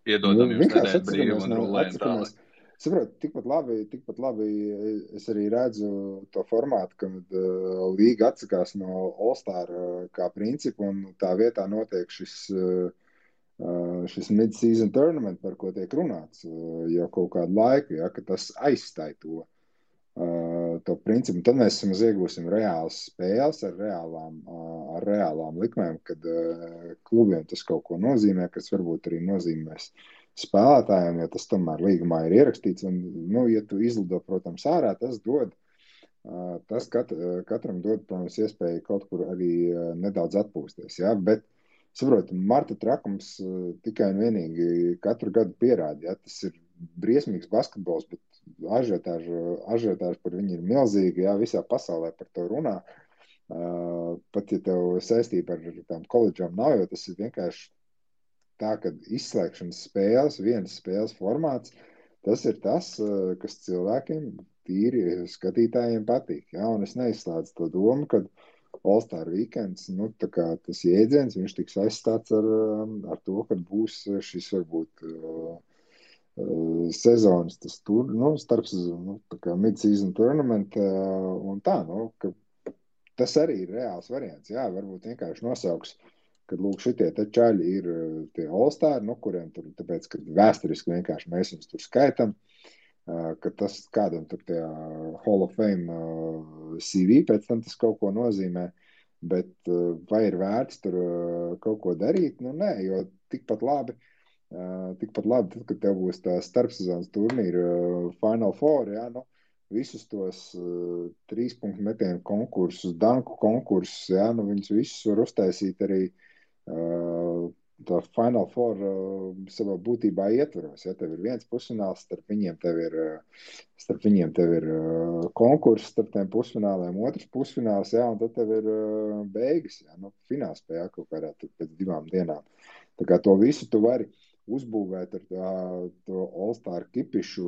Speaker 2: iedodam jums nedēļu brīvu un rulējam tālāk.
Speaker 3: Saprot, tikpat labi es arī redzu to formātu, kad līga atsakās no All-Star kā principu un tā vietā notiek šis mid-season tournament, par ko tiek runāts jau kaut kādu laiku, ka tas aizstāj to principu. Tad mēs iegūsim reālas spēles ar reālām likmēm, kad klubiem tas kaut ko nozīmē, kas varbūt arī nozīmēs spēlētājiem, jo tas tomēr līgumā ir ierakstīts. Un, ja tu izlido, protams, ārā, tas katram dod, protams, iespēju kaut kur arī nedaudz atpūsties. Ja? Bet, saprot, marta trakums tikai un vienīgi katru gadu pierāda. Ja? Tas ir briesmīgs basketbols, bet ažiotāži par viņu ir milzīgi, visā pasaulē par to runā. Pat, ja tev saistība ar tām koledžām nav, jo tas ir vienkārši tā, ka izslēgšanas spēles, vienas spēles formāts, tas ir tas, kas cilvēkiem, tīri skatītājiem patīk. Ja? Un es neizslēdzu to domu, ka All-Star weekends, tas jēdziens, viņš tiks aizstāts ar to, ka būs šis varbūt sezonas, tas tur, starpsezonu, tā kā mid-season tournament, un tā, ka tas arī ir reāls variants. Jā, varbūt vienkārši nosauks, kad lūk šitie te čaļi ir tie All-Star, kuriem tur, tāpēc, ka vēsturiski vienkārši mēs viņus tur skaitam, ka tas kādam tur tie Hall of Fame CV pēc tam tas kaut ko nozīmē, bet vai ir vērts tur kaut ko darīt? Nē, jo tikpat labi, tad, kad tev būs tā starpsezonas turnīra Final Four, visus tos 3-punktu metienu konkursus, danku konkursus, viņus visus var uztaisīt arī tā Final Four savā būtībā ietvaros. Tev ir viens pusfināls, starp viņiem tev ir konkurss starp tiem pusfināliem, otrs pusfināls, un tad tev ir beigas, finālspēle kaut kādā pēc 2 dienām. Tā kā to visu tu vari uzbūvēt ar to All-Star kipišu,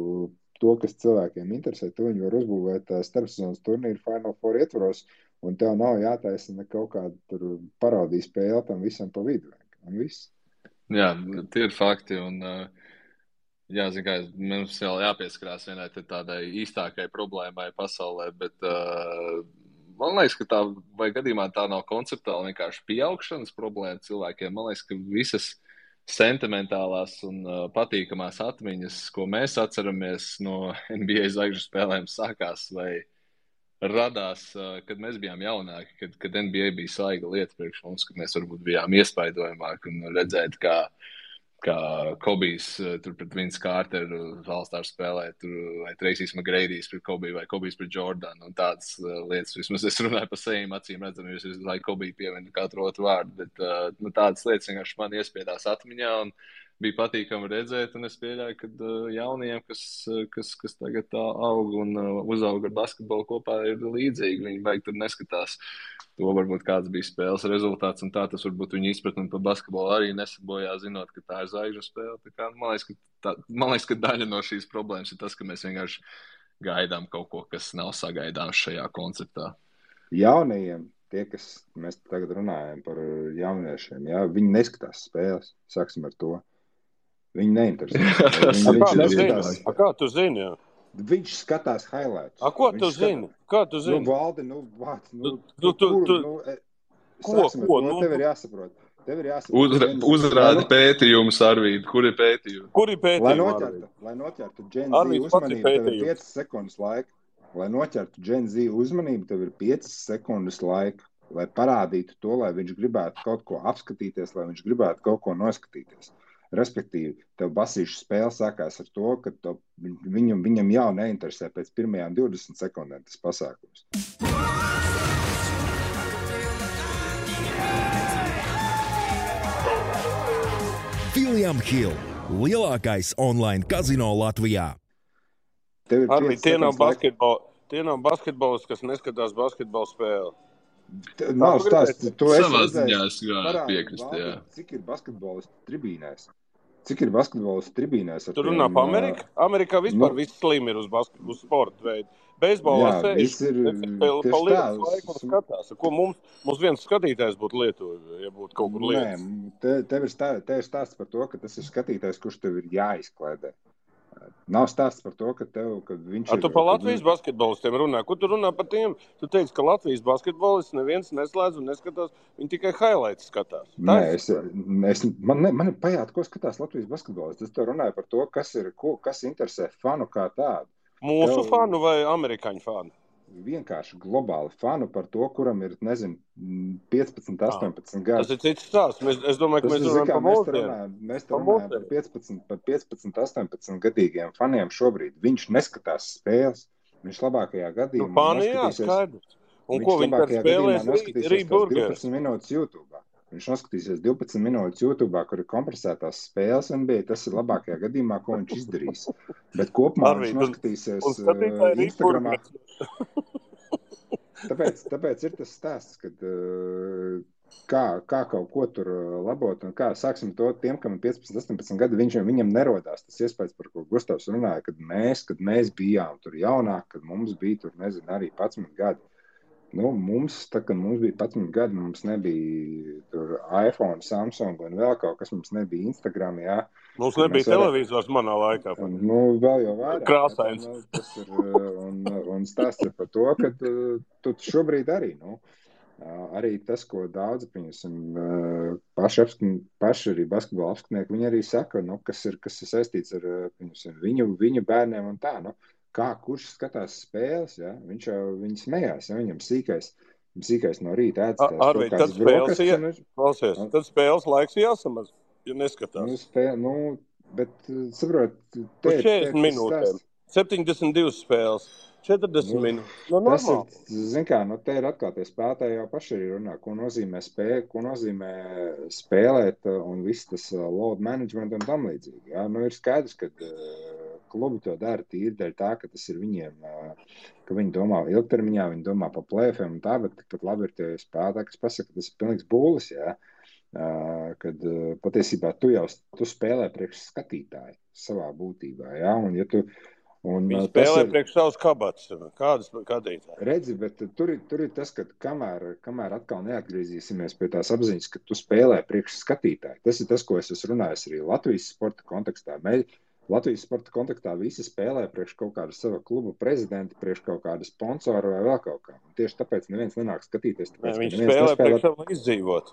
Speaker 3: to, kas cilvēkiem interesē, to viņi var uzbūvēt starpsezonas turnīru Final Four ietvaros, un tev nav jātaisa ne kaut kāda tur parodija spēle tam visam pa vidu. Un viss.
Speaker 2: Jā, tie ir fakti, un mums vēl jāpieskarās vienai tādai īstākai problēmai pasaulē, bet man liekas, ka vai gadījumā tā nav konceptuāli vienkārši pieaugšanas problēma cilvēkiem. Man liekas, ka visas sentimentālās un patīkamās atmiņas, ko mēs atceramies no NBA zvaigžņu spēlēm, sākās vai radās, kad mēs bijām jaunāki, kad NBA bija svaiga lieta priekš mums, kad mēs varbūt bijām iespaidojamāki un redzēt, kā Kobijs tur pret Vince Carteru All-Star spēlē, vai Tracy's McGrady's pret Kobiju, vai Kobijs pret Jordanu, un tādas lietas. Vismaz es runāju par saviem acīm redzam, jo es lai Kobiju pieminu katru otru vārdu, bet tādas lietas vienkārši man iespiedās atmiņā, un bija patīkami redzēt, un es pieļauju, ka jauniem, kas tagad tā aug un uzaug ar basketbolu kopā, ir līdzīgi. Viņi baigi tur neskatās to, varbūt kāds bija spēles rezultāts, un tā tas varbūt viņu izpratni par basketbolu arī nesabojā, zinot, ka tā ir zvaigžņu spēle. Tā kā, man liekas, ka daļa no šīs problēmas ir tas, ka mēs vienkārši gaidām kaut ko, kas nav sagaidāms šajā konceptā.
Speaker 3: Jaunajiem, kas mēs tagad runājam par jauniešiem, jā, viņi neskatās spēles, sāksim ar to. Viņi neinteresē.
Speaker 4: Kā tu zini? Jā?
Speaker 3: Viņš skatās highlights.
Speaker 4: Ko tu zini? Kā tu zini?
Speaker 3: Valdi, tev ir jāsaprot.
Speaker 2: Uzrādi pētījumus, Arvīd. Kur ir pētījumi?
Speaker 3: Lai noķertu Gen Z uzmanību, tev ir 5 sekundes laika. Lai noķertu Gen Z uzmanību, tev ir 5 sekundes laika. Lai parādītu to, lai viņš gribētu kaut ko apskatīties, lai viņš gribētu kaut ko noskatīties. Respektīvi, tev basīšu spēle sākās ar to, ka viņam jau neinteresē pēc pirmajām 20 sekundēm tas pasākums.
Speaker 5: William Hill, lielākais online kazino Latvijā.
Speaker 4: Arī tie nav basketbolisti, kas neskatās basketbola spēli.
Speaker 3: Nav stāsts, to es
Speaker 2: Savā
Speaker 3: redzēju.
Speaker 2: ziņā piekrist, jā.
Speaker 3: Cik ir basketbolisti tribīnēs?
Speaker 4: Tu runā pa Ameriku? Amerikā vispār viss slim ir uz sporta veidu. Beisbolā sēž, pa lietas laiku un skatās. Ko mums viens skatītājs būtu Lietuva, ja būtu kaut kur lietas?
Speaker 3: Nē, tev ir stāsts par to, ka tas ir skatītājs, kurš tev ir jāizkliedē. Nav stāsts par to, ka viņš ir...
Speaker 4: Tu pa Latvijas basketbolistiem runā. Ko tu runā par tiem? Tu teici, ka Latvijas basketbolists neviens neslēdz un neskatās. Viņi tikai highlights skatās.
Speaker 3: Man ir pajāt, ko skatās Latvijas basketbolists. Es tev runāju par to, kas interesē fanu kā tādu.
Speaker 4: Mūsu fanu vai amerikāņu fanu?
Speaker 3: Vienkārši globāli fanu par to, kuram ir, 15, 18 gadi.
Speaker 4: Tas ir cits stāsts. Es domāju, ka mēs runājam par mūsdienām.
Speaker 3: Mēs runājam par 15, 18 gadīgiem faniem šobrīd. Viņš neskatās spēles. Viņš labākajā gadījumā
Speaker 4: skaidrs. Un ko viņi tad spēlēs Rīburgers?
Speaker 3: 12 minūtes YouTube. Viņš noskatīsies 12 minūtes YouTube, kur ir kompresētās spēles NBA. Tas ir labākajā gadījumā, ko viņš izdarīs. Bet kopumā viņš noskatīsies Instagramā. Tāpēc ir tas stāsts, kad kā kaut ko tur labot un kā sāksim to tiem, kam ir 15, 18 gadi, viņam nerodās tas iespējas, par ko Gustavs runāja, kad mēs bijām tur jaunāk, kad mums bija tur, arī 11 gadi. Mums bija 11 gadi, mums nebija tur iPhone, Samsung un vēl kaut kas, mums nebija Instagram, jā.
Speaker 4: Mums nebija televizors manā laikā.
Speaker 3: Vēl jau vairāk.
Speaker 4: Krāsains.
Speaker 3: Un stāsts ir par to, ka tu šobrīd arī, arī tas, ko daudzi, paši arī basketbola apskatnieki, viņi arī saka, kas ir saistīts ar viņu bērniem un tā, kurš skatās spēles, ja? Viņi smējās, ja? Viņam sīkais no rīta ēdz tās brokastis.
Speaker 4: Tad spēles laiks jāsamaz, ja neskatās.
Speaker 3: Bet, saprot,
Speaker 4: uz 40 minūtēm, 72 spēles, 40 minūtes.
Speaker 3: Normāli. Te ir atkal tie spēlētāji jau paši arī runā, ko nozīmē spēlēt un viss tas load management un tam līdzīgi. Ja? Ir skaidrs, ka klubi to dara tīri dēļ tā, ka tas ir viņiem, ka viņi domā ilgtermiņā, viņi domā pa plēfiem un tā, bet tikpat labi ir tie spēlētāji, kas pasaka, ka tas ir pilnīgs būlis, jā. Kad patiesībā tu spēlē priekš skatītāju savā būtībā, jā, un ja tu...
Speaker 4: Viņi spēlē priekš savus kabatas, kādas skatītāji.
Speaker 3: Redzi, bet tur ir tas, ka kamēr atkal neatgriezīsimies pie tās apziņas, ka tu spēlē priekš skatītāju. Tas ir tas, ko es esmu runājis arī Latvijas sporta kontekstā. Latvijas sporta kontaktā visi spēlē priekš kaut kāda sava kluba prezidenta, priekš kaut kāda sponsora vai vēl kaut kā. Un tieši tāpēc neviens nenāk skatīties.
Speaker 4: Viņš spēlē priekš savu izdzīvot.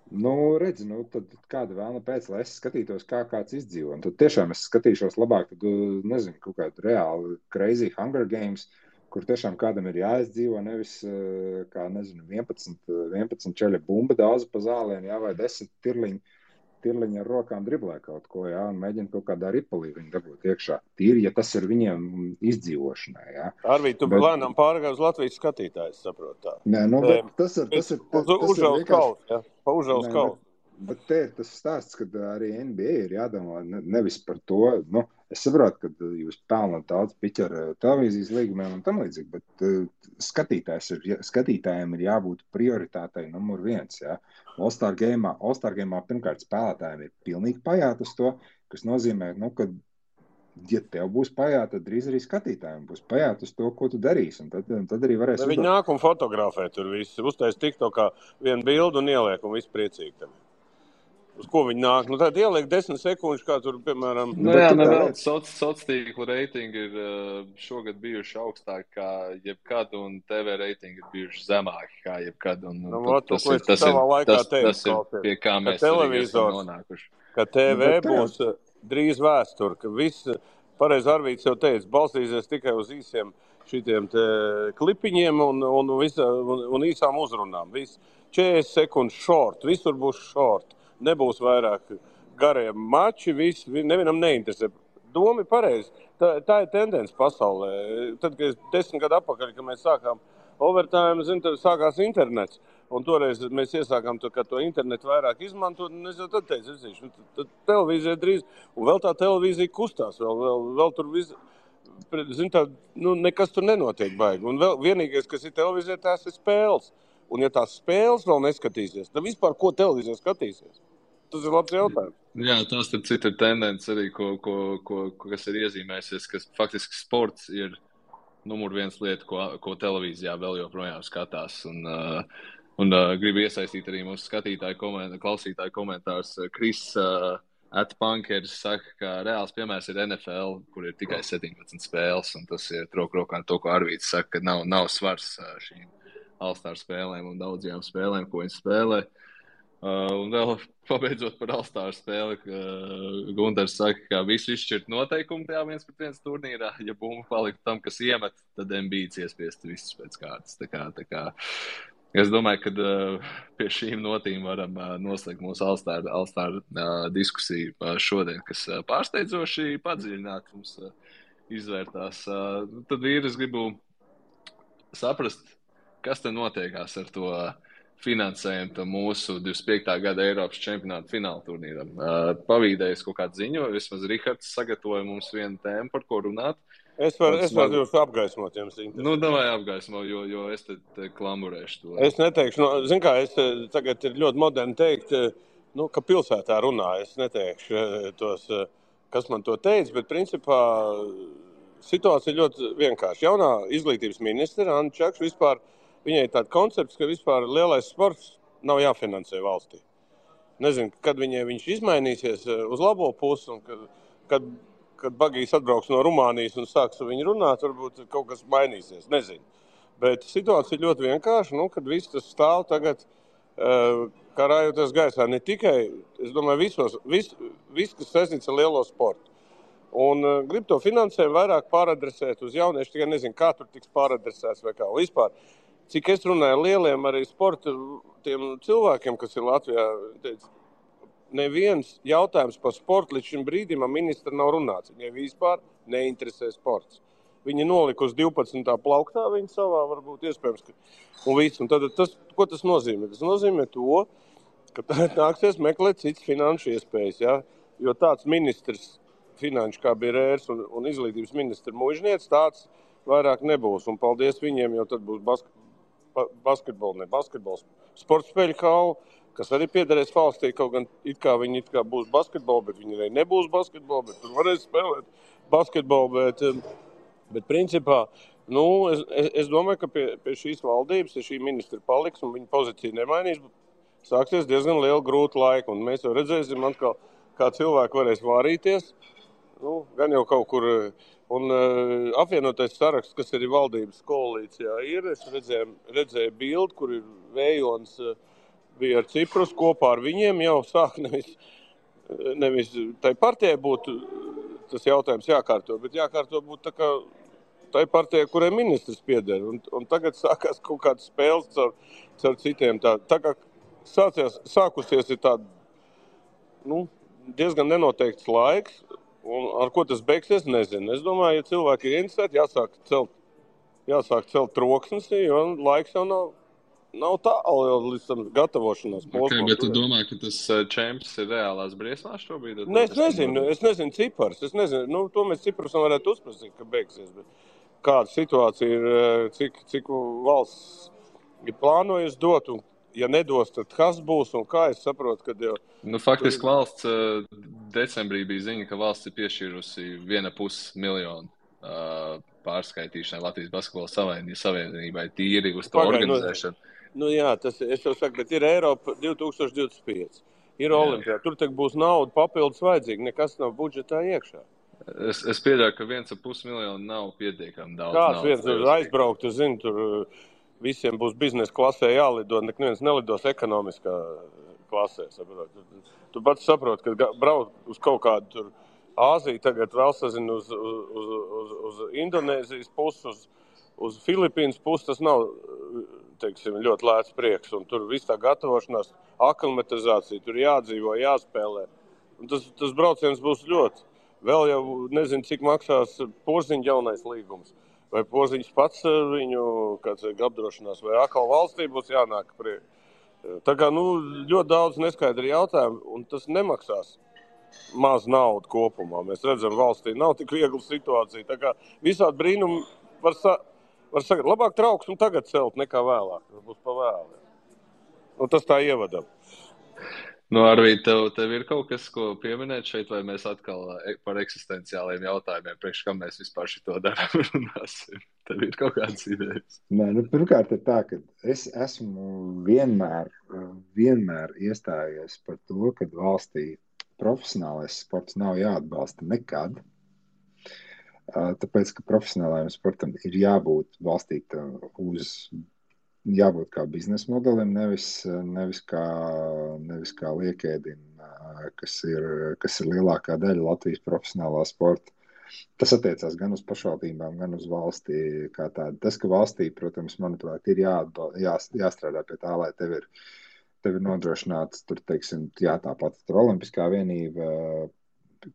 Speaker 3: Redzi, tad kāda vēlna pēc, lai es skatītos, kā kāds izdzīvo. Un tad tiešām es skatīšos labāk, kaut kādu reāli crazy Hunger Games, kur tiešām kādam ir jāizdzīvo, nevis, 11 čeļa bumba daudz pa zālēm, vai 10 tirliņi ar rokām driblē kaut ko, jā, un mēģina kaut kādā ripulī viņu dabūt iekšā. Tīri, ja tas ir viņiem izdzīvošanai, jā.
Speaker 4: Arvī, tu lēnām pārgāji uz Latvijas skatītājus, saprot tā.
Speaker 3: Nē, bet tas ir
Speaker 4: vienkārši... Pa Užaus kausu.
Speaker 3: Bet te ir tas stāsts, kad arī NBA ir jādomā nevis par to, es saprotu, ka jūs pelnat daudz piķi ar televīzijas līgumiem un tam līdzīgi, bet skatītājiem ir jābūt prioritātei numur 1, jā. All-Star Game'ā pirmkārt spēlētājiem ir pilnīgi pajāt uz to, kas nozīmē, ka ja tev būs pajāt, tad drīz arī skatītājiem būs pajāt uz to, ko tu darīsi. Un tad arī varēs
Speaker 4: Viņi nāk un fotografē tur visu. Uztais TikTokā vienu bildu un ieliek un viss priecīgi tam. Uz ko viņi nāk? Tad ieliek 10 sekundžu, kā tur, piemēram...
Speaker 2: Vēl sociālo reitingi ir šogad bijuši augstāki kā jebkad, un TV reitingi ir bijuši zemāki kā jebkad. Tas ir pie kā mēs arī esam nonākuši.
Speaker 4: Ka TV būs drīz vēsture, ka viss, pareizi Arvīts jau teica, balstīsies tikai uz īsiem šitiem klipiņiem un īsām uzrunām. 40 sekundes short, visur būs short. Nebūs vairāk gariem mači, nevienam neinteresē. Doma ir pareizi. Tā ir tendence pasaulē. Tad, kad 10 gadu atpakaļ, kad mēs sākām overtime, tad sākās internets. Un toreiz mēs iesākām to internetu vairāk izmantot, un es jau tad teicu, tad televīzija drīz, un vēl tā televīzija kustās, vēl tur viss, nekas tur nenotiek baigi. Un vēl vienīgais, kas ir televīzija, tās ir spēles. Un ja tās spēles vēl neskatīsies, tad vispār ko televīzija skatīsies? Tas ir labs jautājums.
Speaker 2: Jā, tas ir cita tendence arī, kas ir iezīmējusies, ka faktiski sports ir numur 1 lieta, ko televīzijā vēl joprojām skatās. Un gribu iesaistīt arī mūsu klausītāju komentārs. Kris @Punkers saka, ka reāls piemērs ir NFL, kur ir tikai 17 spēles, un tas ir rokā to, ko Arvīts saka, ka nav svars šīm All-Star spēlēm un daudzajām spēlēm, ko viņi spēlē. Un vēl pabeidzot par All-Star spēli, Gunters saka, ka visu izšķirt noteikumu tajā 1-1 turnīrā. Ja bumba palika tam, kas iemet, tad Embiids iespiest visus pēc kārtas. Tā kā es domāju, ka pie šīm notīm varam noslēgt mūsu All-Star diskusiju šodien, kas pārsteidzoši padziļināt mums izvērtās. Tad vīri, es gribu saprast, kas te notiekās ar to finansējumu mūsu 25. gada Eiropas čempionāta fināla turnīram. Pavīdējis kaut kādu ziņu, vismaz Rihards sagatavoja mums vienu tēmu, par ko runāt.
Speaker 4: Es varu jūs apgaismot, jums interesē.
Speaker 2: Davai apgaismo, jo es te klamurēšu to.
Speaker 4: Es neteikšu, es tagad ir ļoti moderni teikt, ka pilsētā runā. Es neteikšu tos, kas man to teica, bet principā situācija ļoti vienkārši. Jaunā izglītības ministra Anna Čakša vispār, viņai ir tāds koncepts, ka vispār lielais sports nav jāfinansē valstī. Nezinu, kad viņš izmainīsies uz labo pusi, un kad Bagijs atbrauks no Rumānijas un sāks ar viņu runāt, varbūt kaut kas mainīsies, nezinu. Bet situācija ir ļoti vienkārša, kad viss tas stāv tagad, kā rājoties gaisā, ne tikai, es domāju, viss, kas saistīts ar lielo sportu. Un grib to finansējumu vairāk pāradresēt uz jauniešu, tikai nezinu, kā tur tiks pāradresēts vai kā. Vispār, cik es runāju ar lieliem arī sporta tiem cilvēkiem, kas ir Latvijā, teica, neviens jautājums par sportu līdz šim brīdim ministra nav runāts. Viņai vispār neinteresē sports. Viņa nolika uz 12. plauktā, viņa savā varbūt iespējams. Un tad ko tas nozīmē? Tas nozīmē to, ka nāksies meklēt citas finanšu iespējas. Ja? Jo tāds ministrs finanšu kā bija Rērs un izglītības ministra Mužniec, tāds vairāk nebūs. Un paldies viņiem, jo tad būs basketbols, sporta spēļu hala, kas arī piederēs valstī, kaut gan viņi būs basketbolu, bet viņi arī nebūs basketbolu, bet tur varēs spēlēt basketbolu. Bet principā, es domāju, ka pie šīs valdības, ja šī ministra paliks un viņa pozīcija nemainīs, sāksies diezgan liela grūta laika. Un mēs jau redzēsim atkal, kā cilvēki varēs vārīties, gan jau kaut kur. Un apvienotais saraksts, kas arī valdības koalīcijā ir, es redzēju bildi, kur ir Vējons bija ar Ciprus kopā ar viņiem, jau sāk nevis tai partijai būtu tas jautājums jākārto, bet jākārto būtu tā kā tai partijai, kurai ministrs pieder. Un tagad sākās kaut kādas spēles caur citiem. Tā kā sākusies ir tāda, diezgan nenoteikts laiks, un ar ko tas beigsies, nezinu. Es domāju, ja cilvēki ir interesēti, jāsāk celt troksnes, jo laiks jau nav tālu līdz tam gatavošanās posmam.
Speaker 2: Bet tu domā, ka tas čemps ir reālās briesmās šobrīd?
Speaker 4: Es nezinu cipars. To mēs ciprusam varētu uzprasīt, ka beigsies. Bet kāda situācija ir, cik valsts ir plānojusi dot, un ja nedos, tad kas būs un kā es saprotu, kad jau...
Speaker 2: Faktiski valsts decembrī bija ziņa, ka valsts ir piešķīrusi 1,5 miljonu pārskaitīšanai Latvijas basketbola savienībai tīri uz to organizēšanu.
Speaker 4: Nu jā, tas, es jau saku, bet ir Eiropa 2025. Ir Olimpijā. Tur tak būs nauda papildus vajadzīga. Nekas nav budžetā iekšā.
Speaker 2: Es pieļauju, ka 1,5 miljonu nav pietiekami daudz.
Speaker 4: Kāds viens tur aizbraukt, tu zini, tur visiem būs biznesa klasē jālido, neviens nelidos ekonomiskā klasē. Saprot. Tu pats saproti, ka braukt uz kaut kādu tur Āziju, tagad vēl sazinu uz Indonēzijas pusi, uz Filipīnas pusi, tas nav, teiksim, ļoti lēts prieks. Un tur viss tā gatavošanās, aklimatizācija, tur jādzīvo, jāspēlē. Un tas brauciens būs ļoti. Vēl jau nezinu, cik maksās Porziņa jaunais līgums. Vai Porziņš pats viņu apdrošinās, vai atkal valstī būs jānāk priek. Tā kā, ļoti daudz neskaidri jautājumu, un tas nemaksās maz naudu kopumā. Mēs redzam, valstī nav tik viegla situācija. Tā kā visādi brīnumi var sagad. Labāk trauksmu tagad celt nekā vēlāk. Tas būs pa vēlu. Tas tā ievadam.
Speaker 2: Arvīd, tev ir kaut kas, ko pieminēt šeit, vai mēs atkal par eksistenciāliem jautājumiem, priekš kam mēs vispār šito darām runāsim? Tev ir kaut kādas idejas?
Speaker 3: Nē, pirmkārt ir tā, ka es esmu vienmēr iestājies par to, ka valstī profesionālais sports nav jāatbalsta nekad, tāpēc, ka profesionālajiem sportam ir jābūt balstīta jābūt kā biznesa modelim, nevis kā liekēdim, kas ir lielākā daļa Latvijas profesionālā sporta. Tas attiecās gan uz pašvaldībām, gan uz valstī kā tādu. Tas, ka valstī, protams, manuprāt, ir jāstrādā pie tā, lai tev ir nodrošināts, teiksim, tāpat tur olimpiskā vienība,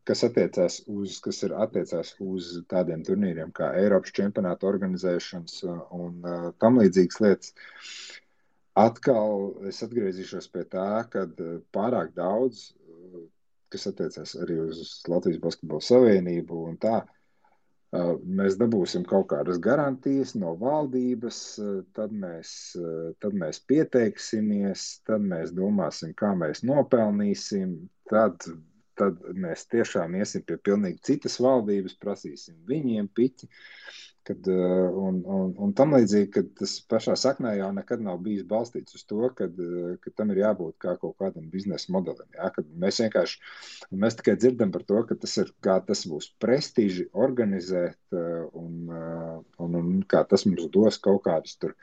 Speaker 3: kas attiecās uz tādiem turnīriem kā Eiropas čempionāta organizēšanas un tam līdzīgas lietas. Atkal es atgriezīšos pie tā, kad pārāk daudz, kas attiecās arī uz Latvijas basketbola savienību un tā, mēs dabūsim kaut kādas garantijas no valdības, tad mēs pieteiksimies, tad mēs domāsim, kā mēs nopelnīsim, tad mēs tiešām iesim pie pilnīgi citas valdības, prasīsim viņiem piķi, un tam līdzīgi, ka tas pašā saknē jau nekad nav bijis balstīts uz to, ka tam ir jābūt kā kaut kādam biznesa modelim. Ja? Kad mēs tikai dzirdam par to, ka tas būs prestiži organizēt un kā tas mums dos kaut kādus tur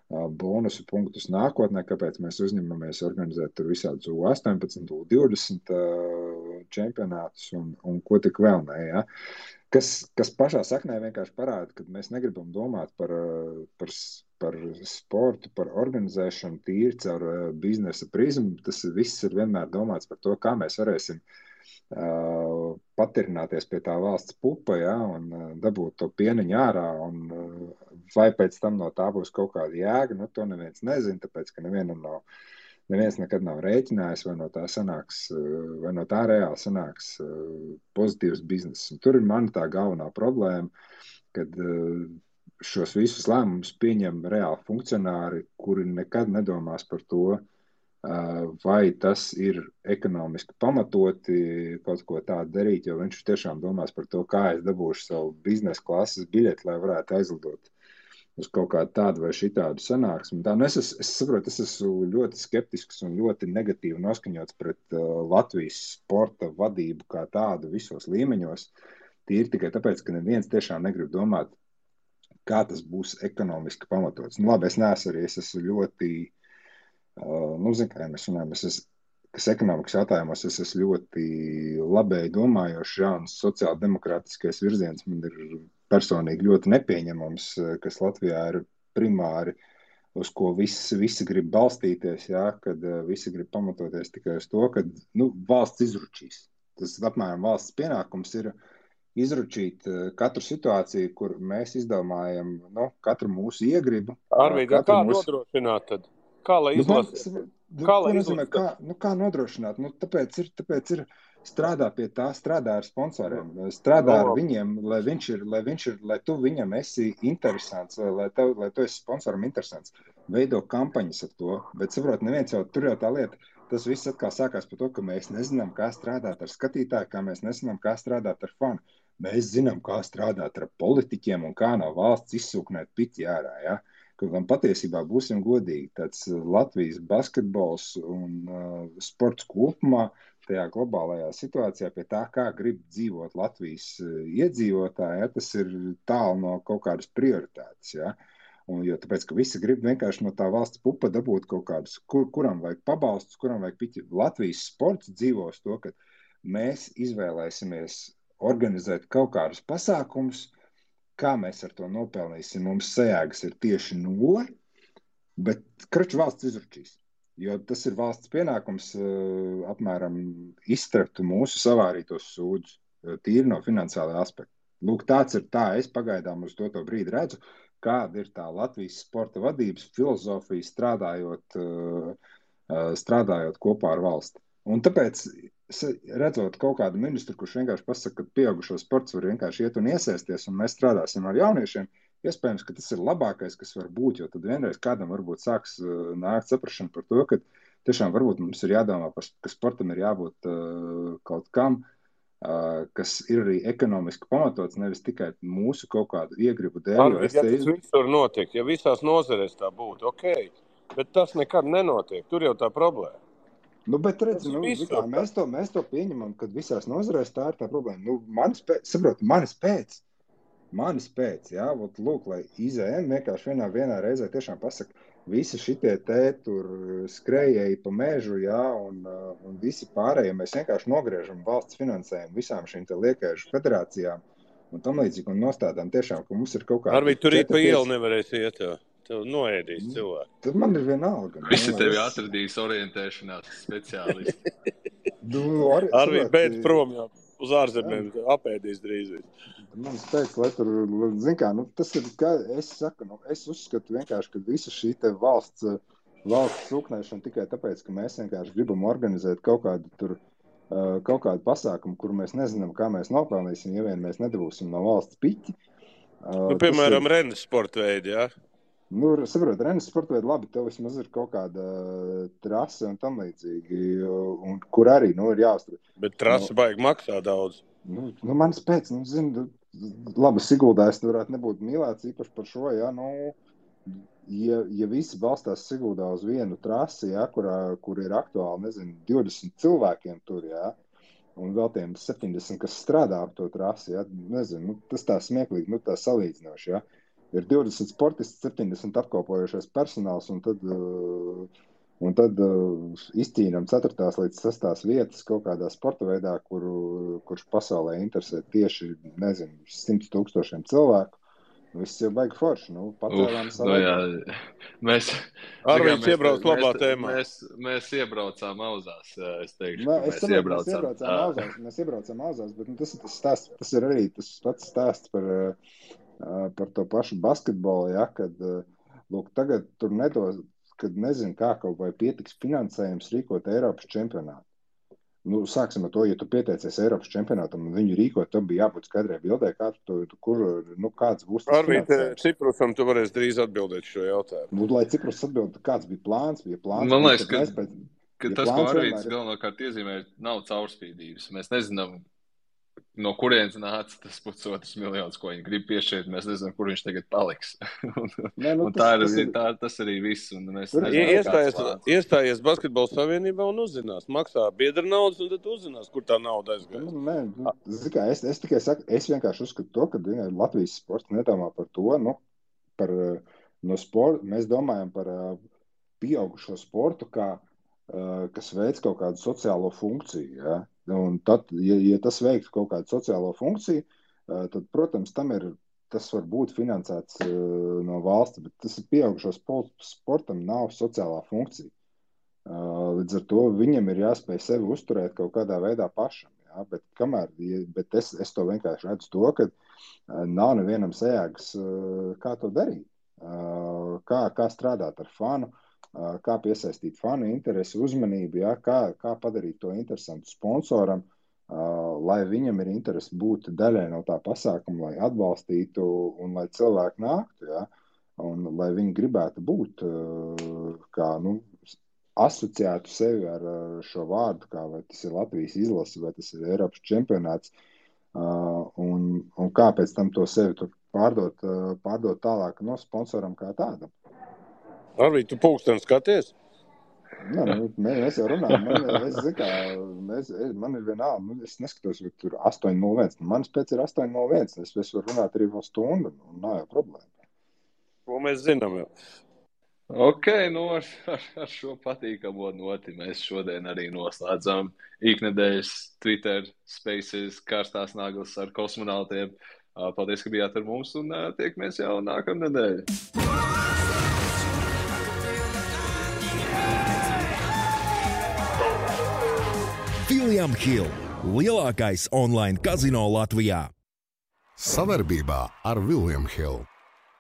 Speaker 3: bonusu punktus nākotnē, kāpēc mēs uzņemamies organizēt tur visādus U18, U20 čempionātus un ko tik vēl ne, ja? Kas pašā saknē vienkārši parāda, ka mēs negribam domāt par sportu, par organizēšanu tīri caur biznesa prizmu. Tas viss ir vienmēr domāts par to, kā mēs varēsim patirināties pie tā valsts pupa, ja, un dabūt to pieniņu ārā, un vai pēc tam no tā būs kaut kāda jēga, to neviens nezina, tāpēc, ka neviens nekad nav rēķinājis, vai no tā reāli sanāks pozitīvs bizness. Un tur ir mana tā galvenā problēma, kad šos visus lēmumus pieņem reāli funkcionāri, kuri nekad nedomās par to, vai tas ir ekonomiski pamatoti kaut ko tādu darīt, jo viņš tiešām domās par to, kā es dabūšu savu biznesa klases biļeti, lai varētu aizlidot uz kaut kādu tādu vai šitādu sanāksmi. Es saprotu, es esmu ļoti skeptisks un ļoti negatīvi noskaņots pret Latvijas sporta vadību kā tādu visos līmeņos. Tīri tikai tāpēc, ka neviens tiešām negrib domāt, kā tas būs ekonomiski pamatots. Labi, es esmu ļoti, zinu, kā mēs runājam, kas ekonomikas jautājumos, es esmu ļoti labēji domājošs, un sociāldemokrātiskais virziens man ir personīgi ļoti nepieņemams, kas Latvijā ir primāri, uz ko visi grib balstīties, ja, kad visi grib pamatoties tikai uz to, ka valsts izručīs. Tas apmēram valsts pienākums ir izručīt katru situāciju, kur mēs izdomājam katru mūsu iegribu.
Speaker 4: Arvīd, kā nodrošināt tad? Kā lai izlasīt?
Speaker 3: Kā nodrošināt? Tāpēc ir strādā pie tā, strādā ar sponsoriem, strādā ar viņiem, lai tu viņam esi interesants, lai tu esi sponsoram interesants. Veido kampaņas ar to, bet saprot, neviens jau tur jau tā lieta, tas viss atkal sākās par to, ka mēs nezinām, kā strādāt ar skatītāju, kā mēs nezinām, kā strādāt ar fanu. Mēs zinām, kā strādāt ar politiķiem un kā no valsts izsūknēt piti ārā, ja? Kaut gan patiesībā būsim godīgi, tāds Latvijas basketbols un sports kopumā tajā globālajā situācijā pie tā, kā grib dzīvot Latvijas iedzīvotāji, ja? Tas ir tālu no kaut kādas prioritātes, ja? Un, jo tāpēc, ka visi grib vienkārši no tā valsts pupa dabūt kaut kādus, kuram vajag pabalstus, kuram vajag piķi. Latvijas sports dzīvos to, ka mēs izvēlēsimies organizēt kaut kādus pasākumus, kā mēs ar to nopelnīsim. Mums sajēgas ir tieši 0, bet kraču valsts izručīs. Jo tas ir valsts pienākums apmēram iztrakt mūsu savārītos sūdus, tīri no finansiālā aspekta. Lūk, tāds ir tā, es pagaidām uz to brīdi redzu, kāda ir tā Latvijas sporta vadības filozofija strādājot kopā ar valsti. Un tāpēc, redzot kaut kādu ministru, kurš vienkārši pasaka, ka pieaugušo sports var vienkārši iet un iesaisties, un mēs strādāsim ar jauniešiem, iespējams, ka tas ir labākais, kas var būt, jo tad vienreiz kādam varbūt sāks nākt saprašana par to, ka tiešām varbūt mums ir jādomā par, ka sportam ir jābūt kaut kam, kas ir arī ekonomiski pamatots, nevis tikai mūsu kaut kādu iegribu dēļ.
Speaker 4: Arvid, ja tas visur notiek, ja visās nozarēs tā būtu, ok, bet tas nekad nenotiek, tur jau tā problēma.
Speaker 3: Nu, bet redz, mēs to pieņemam, kad visās nozarēs tā ir tā problēma. Nu, manis pēc, jā, lūk, lai IZM vienkārši vienā reizē tiešām pasaka, visi šitie tur skrējēji pa mežu, jā, un visi pārējie mēs vienkārši nogriežam valsts finansējumu visām šīm te liekēžu federācijām un tam līdzīgi un nostādām tiešām, ka mums ir kaut kāda...
Speaker 4: Arvīt, tur pa ielu nevarēs iet, tev noēdīs cilvēku.
Speaker 3: Tad man ir vienalga.
Speaker 2: Visi tevi atradīs orientēšanās speciālisti.
Speaker 4: Arvīt, beidz prom jau. Uz ārzemēm apēdīs drīz.
Speaker 3: Man spēc, lai tur, zin kā, tas ir, kā es saku, es uzskatu vienkārši, ka visa šī te valsts sūknēšana tikai tāpēc, ka mēs vienkārši gribam organizēt kaut kādu pasākumu, kur mēs nezinām, kā mēs nopelnīsim, ja vien mēs nedabūsim no valsts piķi.
Speaker 4: Piemēram, rennes sporta veidi, jā?
Speaker 3: Saprot, rennes sporta veidi, labi, tev vismaz ir kaut kāda trase un tam līdzīgi, un kur arī, ir jāuztur.
Speaker 4: Bet trase baigi maksā daudz.
Speaker 3: Manis pēc, labi, Siguldā es varētu nebūt mīlēts īpaši par šo, jā, ja visi balstās Siguldā uz vienu trasi, jā, kur ir aktuāli, 20 cilvēkiem tur, jā, un vēl tiem 70, kas strādā ap to trasi, jā, tas tā smieklīgi, tā salīdzinoši, jā. Ir 20 sportisti, 70 apkalpojošais personāls, un tad izcīnam 4. līdz 6. vietas kaut kādā sporta veidā, kurš pasaulē interesē tieši, 100 000 cilvēku. Viss jau baigi forši, pacēlām savu.
Speaker 4: Arvīds iebrauc labā tēmā.
Speaker 2: Mēs iebraucām auzās, es teikšu,
Speaker 3: mēs iebraucām auzās, bet tas ir tas stāsts, tas ir arī tas pats stāsts par to pašu basketbolu, ja, kad, lūk, tagad tur nedos, kad nezinu, kā kaut vai pietiks finansējums rīkot Eiropas čempionātu. Sāksim ar to, ja tu pieteicies Eiropas čempionātam un viņu rīkot, tam bija jābūt skaidrai bildē, kāds būs tas
Speaker 4: Arvīt,
Speaker 3: finansējums.
Speaker 4: Ciprusam tu varēs drīz atbildēt šo jautājumu.
Speaker 3: Lai Ciprus atbild, kāds bija plāns?
Speaker 2: Man liekas, ka tas, ko Arvīts galvenokārt iezīmē, nav caurspīdības. Mēs nezinām, no kurienes nāca tas 500 miljonus, ko viņi grib piešķirt, mēs nezinām, kur viņš tagad paliks. Tas arī viss.
Speaker 4: Iestājies Basketbola savienībā un uzzinās. Maksā biedra naudas, un tad uzzinās, kur tā nauda aizgājas.
Speaker 3: Es tikai saku, es vienkārši uzskatu to, ka Latvijas sports nedomā par to, no sporta, mēs domājam par pieaugušo sportu, kas veic kaut kādu sociālo funkciju, ja? Un tad, ja tas veiktu kaut kādu sociālo funkciju, tad, protams, tas var būt finansēts no valsts, bet tas ir pieaugušo sportam nav sociālā funkcija. Līdz ar to viņam ir jāspēj sevi uzturēt kaut kādā veidā pašam. Ja? Bet es to vienkārši redzu to, ka nav nevienam sajēgas, kā to darīt. Kā strādāt ar fanu, kā piesaistīt fanu interesi, uzmanību, ja? Kā padarīt to interesantu sponsoram, lai viņam ir interesi būt daļai no tā pasākuma, lai atbalstītu un lai cilvēki nāktu, ja? Un lai viņi gribētu būt kā asociētu sevi ar šo vārdu, kā vai tas ir Latvijas izlase, vai tas ir Eiropas čempionāts, un kā pēc tam to sevi tur pārdot tālāk no sponsoram kā tādam.
Speaker 4: Arvī, tu pulksteni skaties?
Speaker 3: Mēs jau runājam, man ir vienalga, es neskatos, vai tur 8:01, manas pēc ir 8:01, es varu runāt arī vēl stundu, un nav jau problēma.
Speaker 4: Ko mēs zinām jau?
Speaker 2: Ok, ar šo patīkamo noti mēs šodien arī noslēdzam iknedēļas Twitter Spaces karstās naglas ar kosmonautiem. Paldies, ka bijāt ar mums, un tiekamies jau nākamnedēļ.
Speaker 5: William Hill – lielākais online kazino Latvijā.
Speaker 1: Savarbībā ar William Hill.